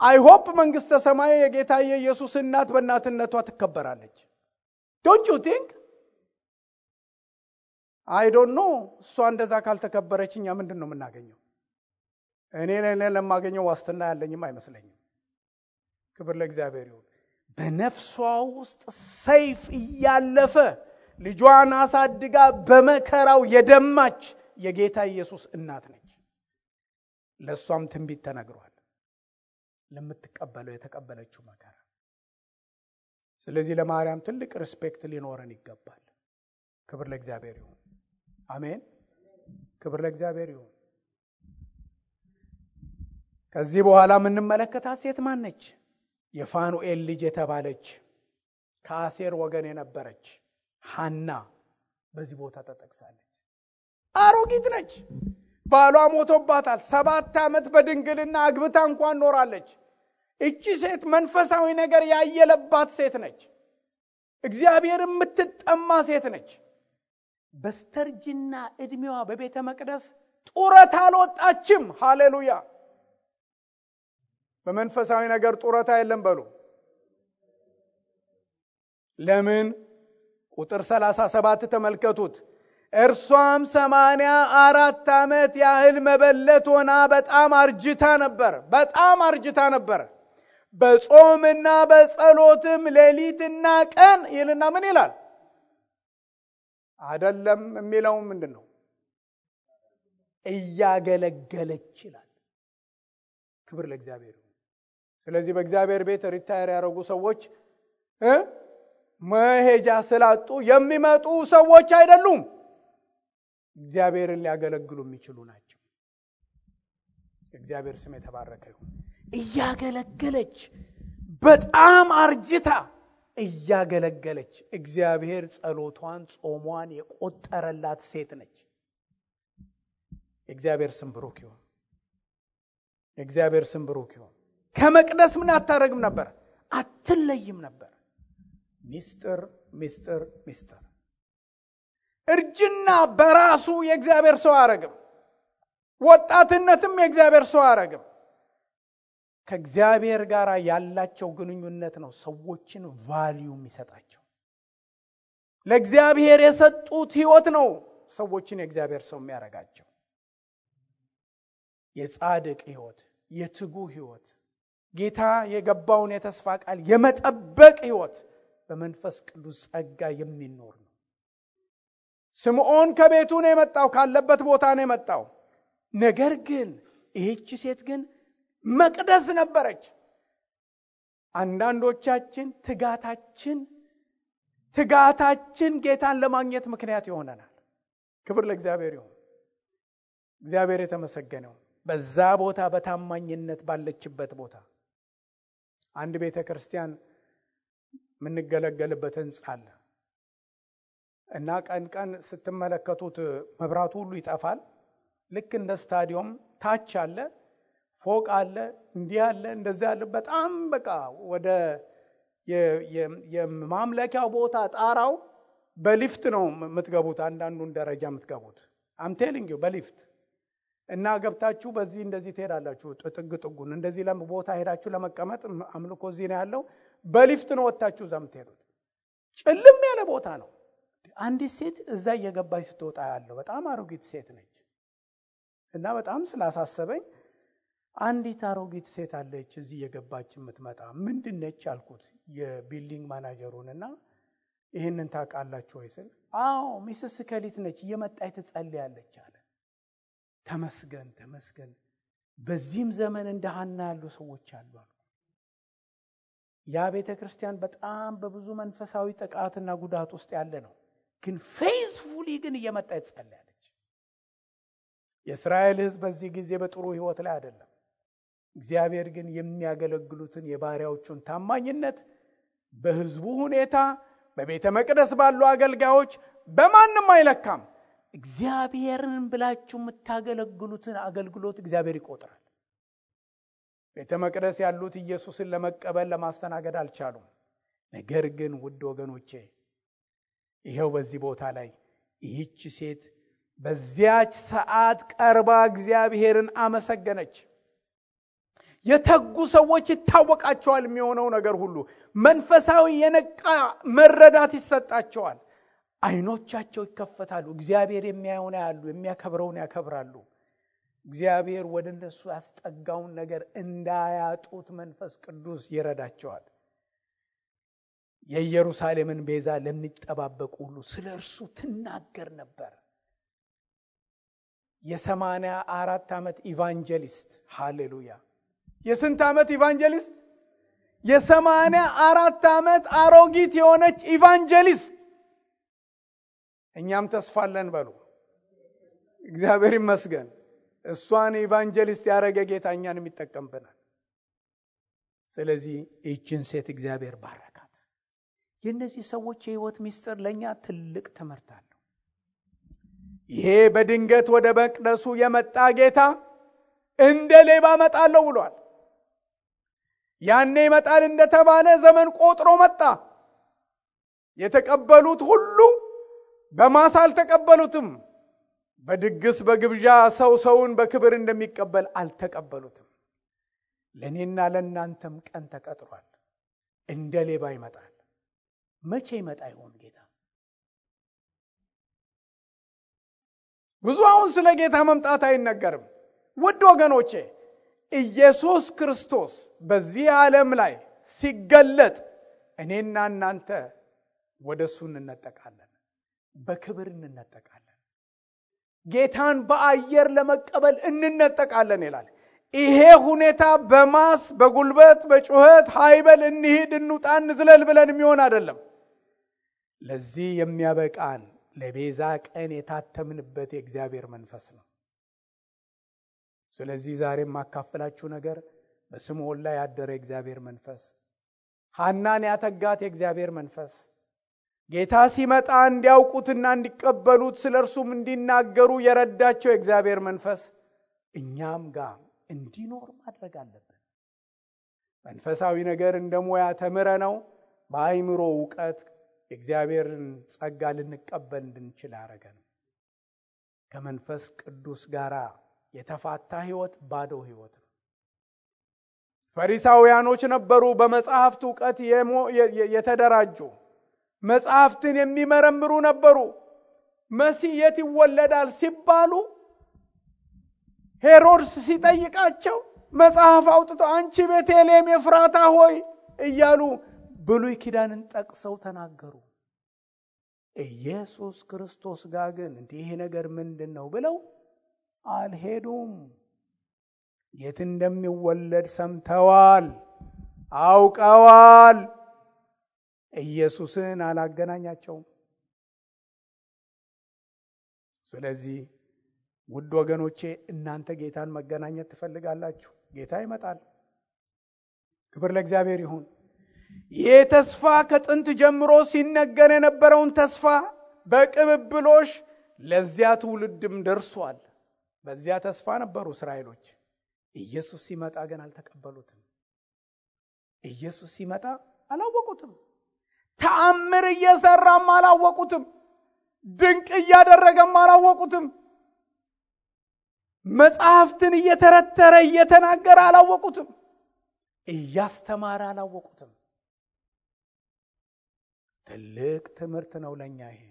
I hope መንግስተ ሰማይ የጌታ የኢየሱስ እናት በእናትነቷ ትከበራለች። Don't you think? I don't know። እሷ እንደዛ ካልተከበረችኛ ምንድነው የምናገኘው? እኔ ለማገኘው ዋስትና ያለኝም አይመስለኝም። ክብር ለእግዚአብሔር ይሁን። በነፍሷ ውስጥ ሰይፍ እያለፈ ልጇን አሳድጋ በመከራው የደማች የጌታ ኢየሱስ እናት ነች። ለሷም ትንቢት ተነግሯል፣ ለምትቀበለው የተቀበለችው መከራ። ስለዚህ ለማርያም ትልቅ ሪስፔክት ሊኖረን ይገባል። ክብር ለእግዚአብሔር ይሁን። አሜን። ክብር ለእግዚአብሔር ይሁን። ከዚህ በኋላ የምንመለከታት ሴት ማን ነች? የፋኑኤል ልጅ የተባለች ከአሴር ወገን የነበረች ሐና በዚህ ቦታ ተጠቅሳለች። አሮጊት ነች። ባሏ ሞቶባታል። 7 ዓመት በድንግልና አግብታ እንኳን ኖራለች። እቺ ሴት መንፈሳዊ ነገር ያየለባት ሴት ነች። እግዚአብሔር የምትጠማ ሴት ነች። በስተርጅና እድሜዋ በቤተ መቅደስ ጡረታ አልወጣችም። ሃሌሉያ። በመንፈሳዊ ነገር ጡረታ የለም በሉ። ለምን? ቁጥር 37 ተመልከቱት። እርሷም 84 ዓመት ያህል መበለት ሆና በጣም አርጅታ ነበር። በጾምና በጸሎትም ሌሊትና ቀን ይልና ምን ይላል? አይደለም የሚለው ምንድነው? እያገለገለች ይላል። ክብር ለእግዚአብሔር። ስለዚህ በእግዚአብሔር ቤት ሪታየር ያደረጉ ሰዎች መሄጃ ስላጡ የሚመጡ ሰዎች አይደሉም። እግዚአብሔርን ሊያገለግሉ የሚችሉ ናቸው። እግዚአብሔር ስም የተባረከ ይሁን። እያገለገለች በጣም አርጅታ እያገለገለች እግዚአብሔር ጸሎቷን ጾሟን የቆጠረላት ሴት ነች። እግዚአብሔር ስም ብሩክ ይሁን። እግዚአብሔር ስም ብሩክ ይሁን። ከመቅደስ ምን አታረግም ነበር? አትለይም ነበር። ሚስጥር እርጅና በራሱ የእግዚአብሔር ሰው አያረግም። ወጣትነትም የእግዚአብሔር ሰው አያረግም። ከእግዚአብሔር ጋር ያላቸው ግንኙነት ነው ሰዎችን ቫልዩ የሚሰጣቸው። ለእግዚአብሔር የሰጡት ህይወት ነው ሰዎችን የእግዚአብሔር ሰው የሚያረጋቸው። የጻድቅ ህይወት፣ የትጉ ህይወት፣ ጌታ የገባውን የተስፋ ቃል የመጠበቅ ህይወት በመንፈስ ቅዱስ ጸጋ የሚኖር ነው። ስምዖን ከቤቱ ነው የመጣው፣ ካለበት ቦታ ነው የመጣው። ነገር ግን ይህች ሴት ግን መቅደስ ነበረች። አንዳንዶቻችን ትጋታችን ጌታን ለማግኘት ምክንያት ይሆነናል። ክብር ለእግዚአብሔር ይሁን። እግዚአብሔር የተመሰገነው። በዛ ቦታ በታማኝነት ባለችበት ቦታ አንድ ቤተ ክርስቲያን የምንገለገልበት ህንጻ አለ እና ቀን ስትመለከቱት መብራቱ ሁሉ ይጠፋል። ልክ እንደ ስታዲየም ታች አለ፣ ፎቅ አለ፣ እንዲህ አለ፣ እንደዚህ አለ። በጣም በቃ ወደ የማምለኪያው ቦታ ጣራው በሊፍት ነው የምትገቡት። አንዳንዱን ደረጃ የምትገቡት አምቴሊንግ በሊፍት እና ገብታችሁ በዚህ እንደዚህ ትሄዳላችሁ። ጥጉን እንደዚህ ቦታ ሄዳችሁ ለመቀመጥ አምልኮ እዚህ ነው ያለው። በሊፍት ነው ወጣችሁ እዛ የምትሄዱት። ጭልም ያለ ቦታ ነው። አንዲት ሴት እዛ እየገባች ስትወጣ ያለው በጣም አሮጊት ሴት ነች እና በጣም ስላሳሰበኝ አንዲት አሮጊት ሴት አለች እዚህ እየገባች የምትመጣ ምንድነች አልኩት የቢልዲንግ ማናጀሩንና ይሄንን ታውቃላችሁ ወይ ስል አዎ ሚስስ ከሊት ነች እየመጣች ትጸልያለች አለ። ተመስገን በዚህም ዘመን እንደ ሐና ያሉ ሰዎች አሉ። ያ ቤተ ክርስቲያን በጣም በብዙ መንፈሳዊ ጥቃትና ጉዳት ውስጥ ያለ ነው፣ ግን ፌዝፉሊ ግን እየመጣች ትጸልያለች። የእስራኤል ሕዝብ በዚህ ጊዜ በጥሩ ህይወት ላይ አይደለም። እግዚአብሔር ግን የሚያገለግሉትን የባሪያዎቹን ታማኝነት በህዝቡ ሁኔታ፣ በቤተ መቅደስ ባሉ አገልጋዮች በማንም አይለካም። እግዚአብሔርን ብላችሁ የምታገለግሉትን አገልግሎት እግዚአብሔር ይቆጥራል። ቤተ መቅደስ ያሉት ኢየሱስን ለመቀበል ለማስተናገድ አልቻሉም። ነገር ግን ውድ ወገኖቼ ይሄው በዚህ ቦታ ላይ ይህች ሴት በዚያች ሰዓት ቀርባ እግዚአብሔርን አመሰገነች። የተጉ ሰዎች ይታወቃቸዋል። የሚሆነው ነገር ሁሉ መንፈሳዊ የነቃ መረዳት ይሰጣቸዋል። አይኖቻቸው ይከፈታሉ። እግዚአብሔር የሚያየውን ያያሉ፣ የሚያከብረውን ያከብራሉ። እግዚአብሔር ወደ እነሱ ያስጠጋውን ነገር እንዳያጡት መንፈስ ቅዱስ ይረዳቸዋል። የኢየሩሳሌምን ቤዛ ለሚጠባበቁ ሁሉ ስለ እርሱ ትናገር ነበር። የ84 ዓመት ኢቫንጀሊስት ሃሌሉያ! የስንት ዓመት ኢቫንጀሊስት? የ84 ዓመት አሮጊት የሆነች ኢቫንጀሊስት። እኛም ተስፋለን በሉ። እግዚአብሔር ይመስገን። እሷን ኢቫንጀሊስት ያደረገ ጌታ እኛንም ይጠቀምብናል። ስለዚህ ይህችን ሴት እግዚአብሔር ባረካት። የእነዚህ ሰዎች የህይወት ምስጢር ለእኛ ትልቅ ትምህርት አለው። ይሄ በድንገት ወደ መቅደሱ የመጣ ጌታ እንደ ሌባ እመጣለሁ ብሏል። ያኔ ይመጣል እንደተባለ ዘመን ቆጥሮ መጣ። የተቀበሉት ሁሉ በማሳ አልተቀበሉትም። በድግስ በግብዣ ሰውን በክብር እንደሚቀበል አልተቀበሉትም። ለኔና ለናንተም ቀን ተቀጥሯል። እንደ ሌባ ይመጣል። መቼ ይመጣ ይሆን ጌታ? ብዙ አሁን ስለ ጌታ መምጣት አይነገርም። ውድ ወገኖቼ ኢየሱስ ክርስቶስ በዚህ ዓለም ላይ ሲገለጥ እኔና እናንተ ወደሱ እንነጠቃለን፣ በክብር እንነጠቃለን። ጌታን በአየር ለመቀበል እንነጠቃለን ይላል። ይሄ ሁኔታ በማስ በጉልበት በጩኸት ሃይበል እንሂድ እንውጣ እንዝለል ብለን የሚሆን አይደለም። ለዚህ የሚያበቃን ለቤዛ ቀን የታተምንበት የእግዚአብሔር መንፈስ ነው። ስለዚህ ዛሬ የማካፈላችሁ ነገር በስምዖን ላይ ያደረ የእግዚአብሔር መንፈስ፣ ሐናን ያተጋት የእግዚአብሔር መንፈስ፣ ጌታ ሲመጣ እንዲያውቁትና እንዲቀበሉት ስለርሱም እንዲናገሩ የረዳቸው የእግዚአብሔር መንፈስ እኛም ጋር እንዲኖር ማድረግ አለብን። መንፈሳዊ ነገር እንደ ሙያ ተምረ ነው በአይምሮ ዕውቀት የእግዚአብሔርን ጸጋ ልንቀበል እንድንችል ያደረገን። ከመንፈስ ቅዱስ ጋር የተፋታ ህይወት ባዶ ህይወት ነው። ፈሪሳውያኖች ነበሩ፣ በመጽሐፍት ዕውቀት የተደራጁ መጽሐፍትን የሚመረምሩ ነበሩ። መሲህ የት ይወለዳል ሲባሉ ሄሮድስ ሲጠይቃቸው መጽሐፍ አውጥተው አንቺ ቤተልሔም ኤፍራታ ሆይ እያሉ ብሉይ ኪዳንን ጠቅሰው ተናገሩ። ኢየሱስ ክርስቶስ ጋር ግን ይሄ ነገር ምንድነው ብለው አልሄዱም። የት እንደሚወለድ ሰምተዋል፣ አውቀዋል። ኢየሱስን አላገናኛቸውም። ስለዚህ ውድ ወገኖቼ እናንተ ጌታን መገናኘት ትፈልጋላችሁ? ጌታ ይመጣል። ክብር ለእግዚአብሔር ይሁን። ይህ ተስፋ ከጥንት ጀምሮ ሲነገር የነበረውን ተስፋ በቅብብሎሽ ለዚያ ትውልድም ደርሷል። በዚያ ተስፋ ነበሩ እስራኤሎች። ኢየሱስ ሲመጣ ግን አልተቀበሉትም። ኢየሱስ ሲመጣ አላወቁትም። ተአምር እየሰራም አላወቁትም። ድንቅ እያደረገም አላወቁትም። መጽሐፍትን እየተረተረ እየተናገረ አላወቁትም። እያስተማረ አላወቁትም። ትልቅ ትምህርት ነው ለኛ ይሄ።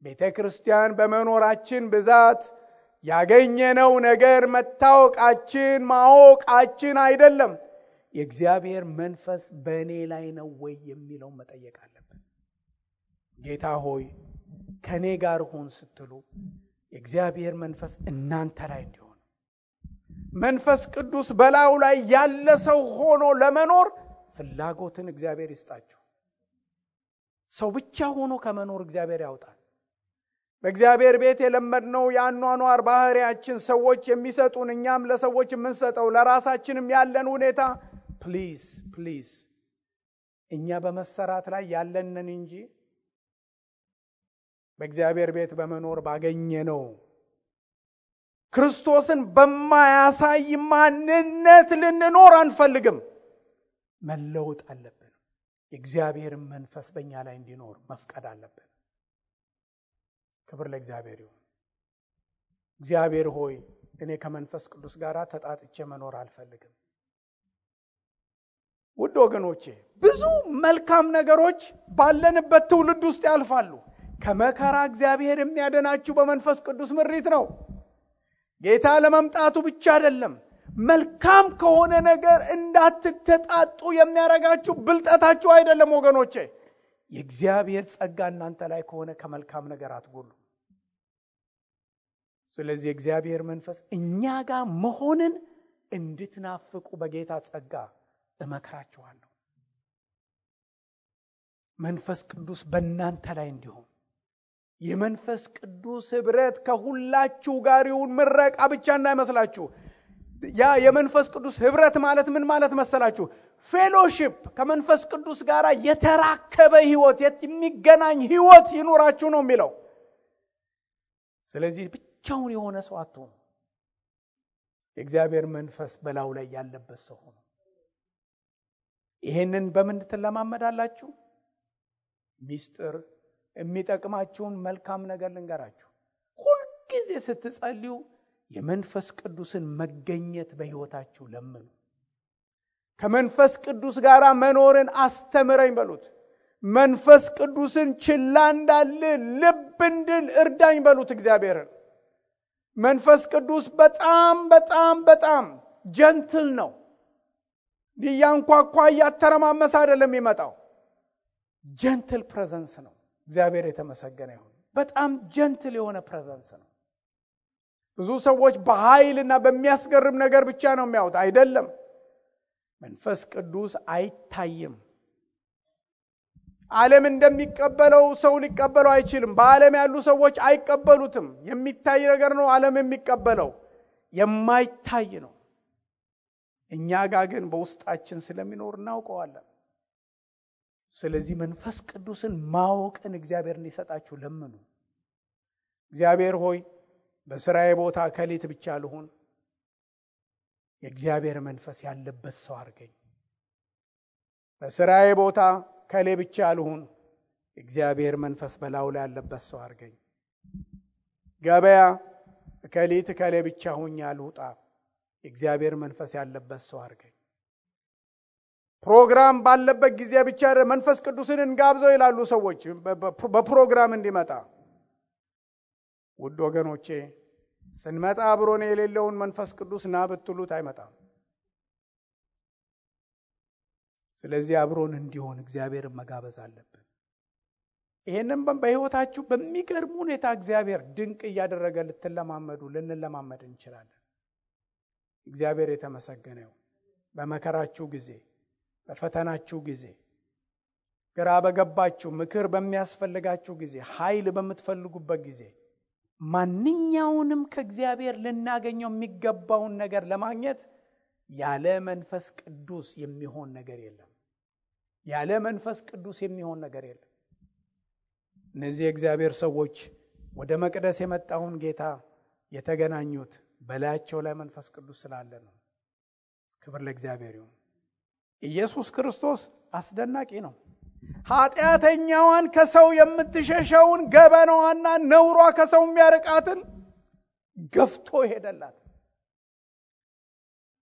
ቤተ ክርስቲያን በመኖራችን ብዛት ያገኘነው ነገር መታወቃችን ማወቃችን አይደለም። የእግዚአብሔር መንፈስ በእኔ ላይ ነው ወይ የሚለው መጠየቅ አለብን። ጌታ ሆይ ከኔ ጋር ሁን ስትሉ የእግዚአብሔር መንፈስ እናንተ ላይ እንዲሆን፣ መንፈስ ቅዱስ በላዩ ላይ ያለ ሰው ሆኖ ለመኖር ፍላጎትን እግዚአብሔር ይስጣችሁ። ሰው ብቻ ሆኖ ከመኖር እግዚአብሔር ያውጣል። በእግዚአብሔር ቤት የለመድነው የአኗኗር ባህሪያችን ሰዎች የሚሰጡን እኛም ለሰዎች የምንሰጠው ለራሳችንም ያለን ሁኔታ ፕሊዝ እኛ በመሰራት ላይ ያለንን እንጂ በእግዚአብሔር ቤት በመኖር ባገኘነው ክርስቶስን በማያሳይ ማንነት ልንኖር አንፈልግም። መለወጥ አለብን። የእግዚአብሔር መንፈስ በእኛ ላይ እንዲኖር መፍቀድ አለብን። ክብር ለእግዚአብሔር ይሁን። እግዚአብሔር ሆይ እኔ ከመንፈስ ቅዱስ ጋር ተጣጥቼ መኖር አልፈልግም። ውድ ወገኖቼ ብዙ መልካም ነገሮች ባለንበት ትውልድ ውስጥ ያልፋሉ። ከመከራ እግዚአብሔር የሚያድናችሁ በመንፈስ ቅዱስ ምሪት ነው። ጌታ ለመምጣቱ ብቻ አይደለም፣ መልካም ከሆነ ነገር እንዳትተጣጡ የሚያረጋችሁ ብልጠታችሁ አይደለም ወገኖቼ። የእግዚአብሔር ጸጋ እናንተ ላይ ከሆነ ከመልካም ነገር አትጎሉ። ስለዚህ የእግዚአብሔር መንፈስ እኛ ጋር መሆንን እንድትናፍቁ በጌታ ጸጋ እመክራችኋለሁ። መንፈስ ቅዱስ በእናንተ ላይ እንዲሆን፣ የመንፈስ ቅዱስ ህብረት ከሁላችሁ ጋር ይሁን። ምረቃ ብቻ እንዳይመስላችሁ። ያ የመንፈስ ቅዱስ ህብረት ማለት ምን ማለት መሰላችሁ? ፌሎሺፕ፣ ከመንፈስ ቅዱስ ጋር የተራከበ ህይወት፣ የሚገናኝ ህይወት ይኖራችሁ ነው የሚለው። ስለዚህ ብቻውን የሆነ ሰው አትሁኑ። የእግዚአብሔር መንፈስ በላዩ ላይ ያለበት ሰው ሆኖ ይሄንን በምን ትለማመዳላችሁ? ሚስጥር የሚጠቅማችሁን መልካም ነገር ልንገራችሁ። ሁልጊዜ ስትጸልዩ የመንፈስ ቅዱስን መገኘት በህይወታችሁ ለምኑ። ከመንፈስ ቅዱስ ጋር መኖርን አስተምረኝ በሉት። መንፈስ ቅዱስን ችላ እንዳልል ልብ እንድል እርዳኝ በሉት እግዚአብሔርን። መንፈስ ቅዱስ በጣም በጣም በጣም ጀንትል ነው። ሊያንኳኳ እያተረማመሰ አይደለም የሚመጣው። ጀንትል ፕሬዘንስ ነው። እግዚአብሔር የተመሰገነ ይሁን። በጣም ጀንትል የሆነ ፕሬዘንስ ነው። ብዙ ሰዎች በኃይልና በሚያስገርም ነገር ብቻ ነው የሚያዩት። አይደለም። መንፈስ ቅዱስ አይታይም። ዓለም እንደሚቀበለው ሰው ሊቀበለው አይችልም። በዓለም ያሉ ሰዎች አይቀበሉትም። የሚታይ ነገር ነው ዓለም የሚቀበለው፣ የማይታይ ነው። እኛ ጋር ግን በውስጣችን ስለሚኖር እናውቀዋለን። ስለዚህ መንፈስ ቅዱስን ማወቅን እግዚአብሔር እንዲሰጣችሁ ለምኑ። እግዚአብሔር ሆይ በስራዬ ቦታ ከሌት ብቻ ልሁን፣ የእግዚአብሔር መንፈስ ያለበት ሰው አድርገኝ። በስራዬ ቦታ ከሌ ብቻ ልሁን፣ የእግዚአብሔር መንፈስ በላዩ ላይ ያለበት ሰው አድርገኝ። ገበያ ከሌት ከሌ ብቻ ሁኝ አልውጣ፣ የእግዚአብሔር መንፈስ ያለበት ሰው አድርገኝ። ፕሮግራም ባለበት ጊዜ ብቻ መንፈስ ቅዱስን እንጋብዘው ይላሉ ሰዎች በፕሮግራም እንዲመጣ። ውድ ወገኖቼ ስንመጣ አብሮን የሌለውን መንፈስ ቅዱስ ና ብትሉት አይመጣም። ስለዚህ አብሮን እንዲሆን እግዚአብሔርን መጋበዝ አለብን። ይሄንን በህይወታችሁ በሚገርም ሁኔታ እግዚአብሔር ድንቅ እያደረገ ልንለማመድ እንችላለን። እግዚአብሔር የተመሰገነ ይሁን። በመከራችሁ ጊዜ በፈተናችሁ ጊዜ፣ ግራ በገባችሁ፣ ምክር በሚያስፈልጋችሁ ጊዜ፣ ኃይል በምትፈልጉበት ጊዜ ማንኛውንም ከእግዚአብሔር ልናገኘው የሚገባውን ነገር ለማግኘት ያለ መንፈስ ቅዱስ የሚሆን ነገር የለም። ያለ መንፈስ ቅዱስ የሚሆን ነገር የለም። እነዚህ የእግዚአብሔር ሰዎች ወደ መቅደስ የመጣውን ጌታ የተገናኙት በላያቸው ላይ መንፈስ ቅዱስ ስላለ ነው። ክብር ለእግዚአብሔር ይሁን። ኢየሱስ ክርስቶስ አስደናቂ ነው። ኃጢአተኛዋን ከሰው የምትሸሸውን ገበናዋና ነውሯ ከሰው የሚያርቃትን ገፍቶ ሄደላት።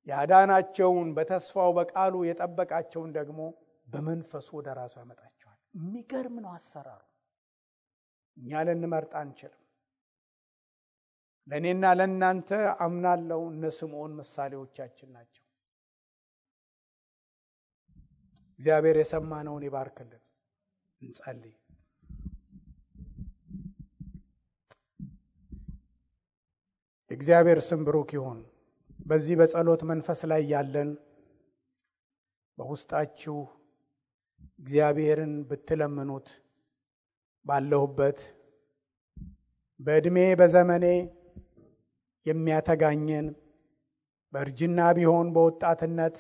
ያዳናቸውን በተስፋው በቃሉ የጠበቃቸውን ደግሞ በመንፈሱ ወደ ራሱ ያመጣቸዋል። የሚገርም ነው አሰራሩ። እኛ ልንመርጥ አንችልም። ለእኔና ለእናንተ አምናለሁ እነ ስምዖን ምሳሌዎቻችን ናቸው። እግዚአብሔር የሰማነውን ይባርክልን። እንጸልይ። እግዚአብሔር ስም ብሩክ ይሁን። በዚህ በጸሎት መንፈስ ላይ ያለን በውስጣችሁ እግዚአብሔርን ብትለምኑት ባለሁበት በእድሜ በዘመኔ የሚያተጋኘን በእርጅና ቢሆን በወጣትነት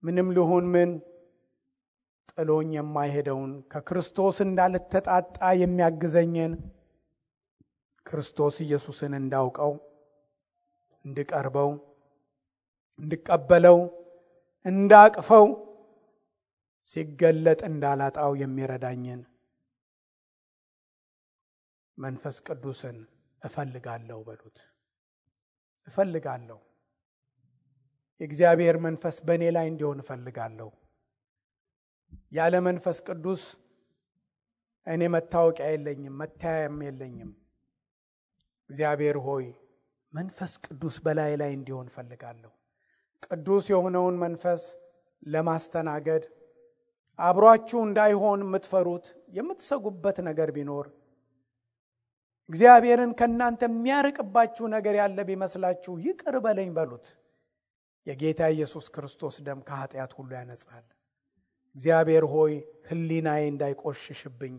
ምንም ልሁን ምን ጥሎኝ የማይሄደውን ከክርስቶስ እንዳልተጣጣ የሚያግዘኝን ክርስቶስ ኢየሱስን እንዳውቀው፣ እንድቀርበው፣ እንድቀበለው፣ እንዳቅፈው፣ ሲገለጥ እንዳላጣው የሚረዳኝን መንፈስ ቅዱስን እፈልጋለሁ በሉት። እፈልጋለሁ። የእግዚአብሔር መንፈስ በእኔ ላይ እንዲሆን እፈልጋለሁ። ያለ መንፈስ ቅዱስ እኔ መታወቂያ የለኝም፣ መታያም የለኝም። እግዚአብሔር ሆይ መንፈስ ቅዱስ በላይ ላይ እንዲሆን እፈልጋለሁ። ቅዱስ የሆነውን መንፈስ ለማስተናገድ አብሯችሁ እንዳይሆን የምትፈሩት የምትሰጉበት ነገር ቢኖር እግዚአብሔርን ከእናንተ የሚያርቅባችሁ ነገር ያለ ቢመስላችሁ ይቅር በለኝ በሉት። የጌታ ኢየሱስ ክርስቶስ ደም ከኃጢአት ሁሉ ያነጻል። እግዚአብሔር ሆይ ሕሊናዬ እንዳይቆሽሽብኝ፣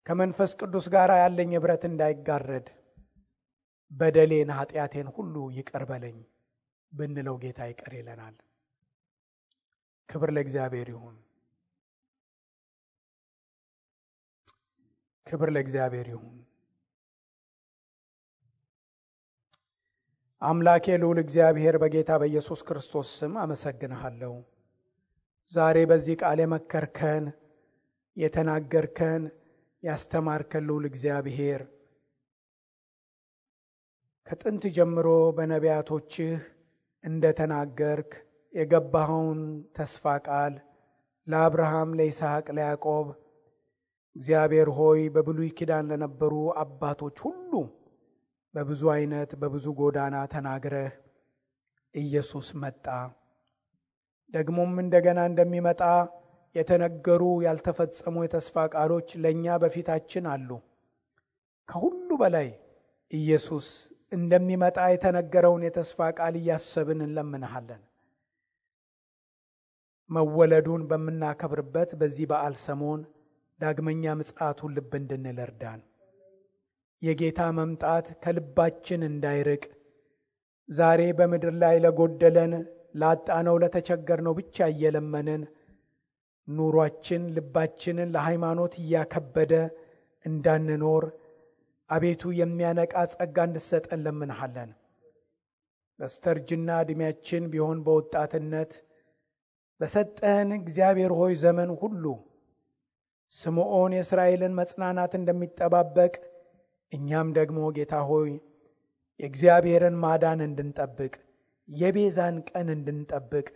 ከመንፈስ ቅዱስ ጋር ያለኝ ኅብረት እንዳይጋረድ በደሌን ኃጢአቴን ሁሉ ይቅር በለኝ ብንለው ጌታ ይቅር ይለናል። ክብር ለእግዚአብሔር ይሁን። ክብር ለእግዚአብሔር ይሁን። አምላኬ ልዑል እግዚአብሔር በጌታ በኢየሱስ ክርስቶስ ስም አመሰግንሃለሁ። ዛሬ በዚህ ቃል የመከርከን፣ የተናገርከን፣ ያስተማርከን ልዑል እግዚአብሔር ከጥንት ጀምሮ በነቢያቶችህ እንደተናገርክ የገባኸውን ተስፋ ቃል ለአብርሃም፣ ለይስሐቅ፣ ለያዕቆብ እግዚአብሔር ሆይ በብሉይ ኪዳን ለነበሩ አባቶች ሁሉ በብዙ አይነት በብዙ ጎዳና ተናግረህ ኢየሱስ መጣ። ደግሞም እንደገና እንደሚመጣ የተነገሩ ያልተፈጸሙ የተስፋ ቃሎች ለእኛ በፊታችን አሉ። ከሁሉ በላይ ኢየሱስ እንደሚመጣ የተነገረውን የተስፋ ቃል እያሰብን እንለምንሃለን። መወለዱን በምናከብርበት በዚህ በዓል ሰሞን ዳግመኛ ምጽአቱን ልብ እንድንል እርዳን። የጌታ መምጣት ከልባችን እንዳይርቅ ዛሬ በምድር ላይ ለጎደለን፣ ላጣነው፣ ለተቸገርነው ብቻ እየለመንን ኑሯችን ልባችንን ለሃይማኖት እያከበደ እንዳንኖር አቤቱ የሚያነቃ ጸጋ እንድሰጠን ለምንሃለን። በስተርጅና ዕድሜያችን ቢሆን በወጣትነት በሰጠን እግዚአብሔር ሆይ ዘመን ሁሉ ስምዖን የእስራኤልን መጽናናት እንደሚጠባበቅ እኛም ደግሞ ጌታ ሆይ የእግዚአብሔርን ማዳን እንድንጠብቅ፣ የቤዛን ቀን እንድንጠብቅ፣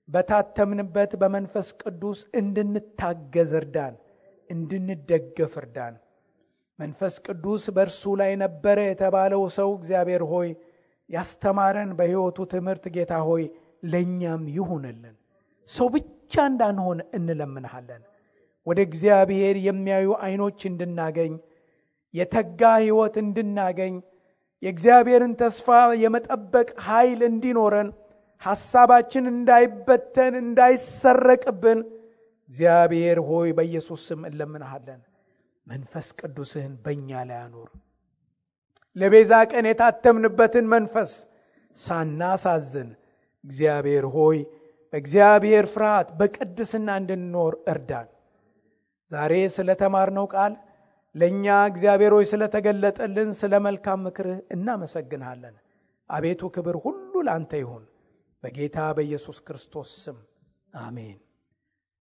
በታተምንበት በመንፈስ ቅዱስ እንድንታገዝ እርዳን፣ እንድንደገፍ እርዳን። መንፈስ ቅዱስ በእርሱ ላይ ነበረ የተባለው ሰው እግዚአብሔር ሆይ ያስተማረን በሕይወቱ ትምህርት ጌታ ሆይ ለእኛም ይሁንልን። ሰው ብቻ እንዳንሆን እንለምንሃለን። ወደ እግዚአብሔር የሚያዩ ዓይኖች እንድናገኝ፣ የተጋ ሕይወት እንድናገኝ፣ የእግዚአብሔርን ተስፋ የመጠበቅ ኃይል እንዲኖረን፣ ሐሳባችን እንዳይበተን እንዳይሰረቅብን እግዚአብሔር ሆይ በኢየሱስ ስም እንለምንሃለን። መንፈስ ቅዱስህን በእኛ ላይ አኑር። ለቤዛ ቀን የታተምንበትን መንፈስ ሳናሳዝን እግዚአብሔር ሆይ በእግዚአብሔር ፍርሃት በቅድስና እንድንኖር እርዳን። ዛሬ ስለተማርነው ቃል ለእኛ እግዚአብሔር ሆይ ስለተገለጠልን ስለ መልካም ምክርህ እናመሰግንሃለን። አቤቱ ክብር ሁሉ ለአንተ ይሁን፣ በጌታ በኢየሱስ ክርስቶስ ስም አሜን።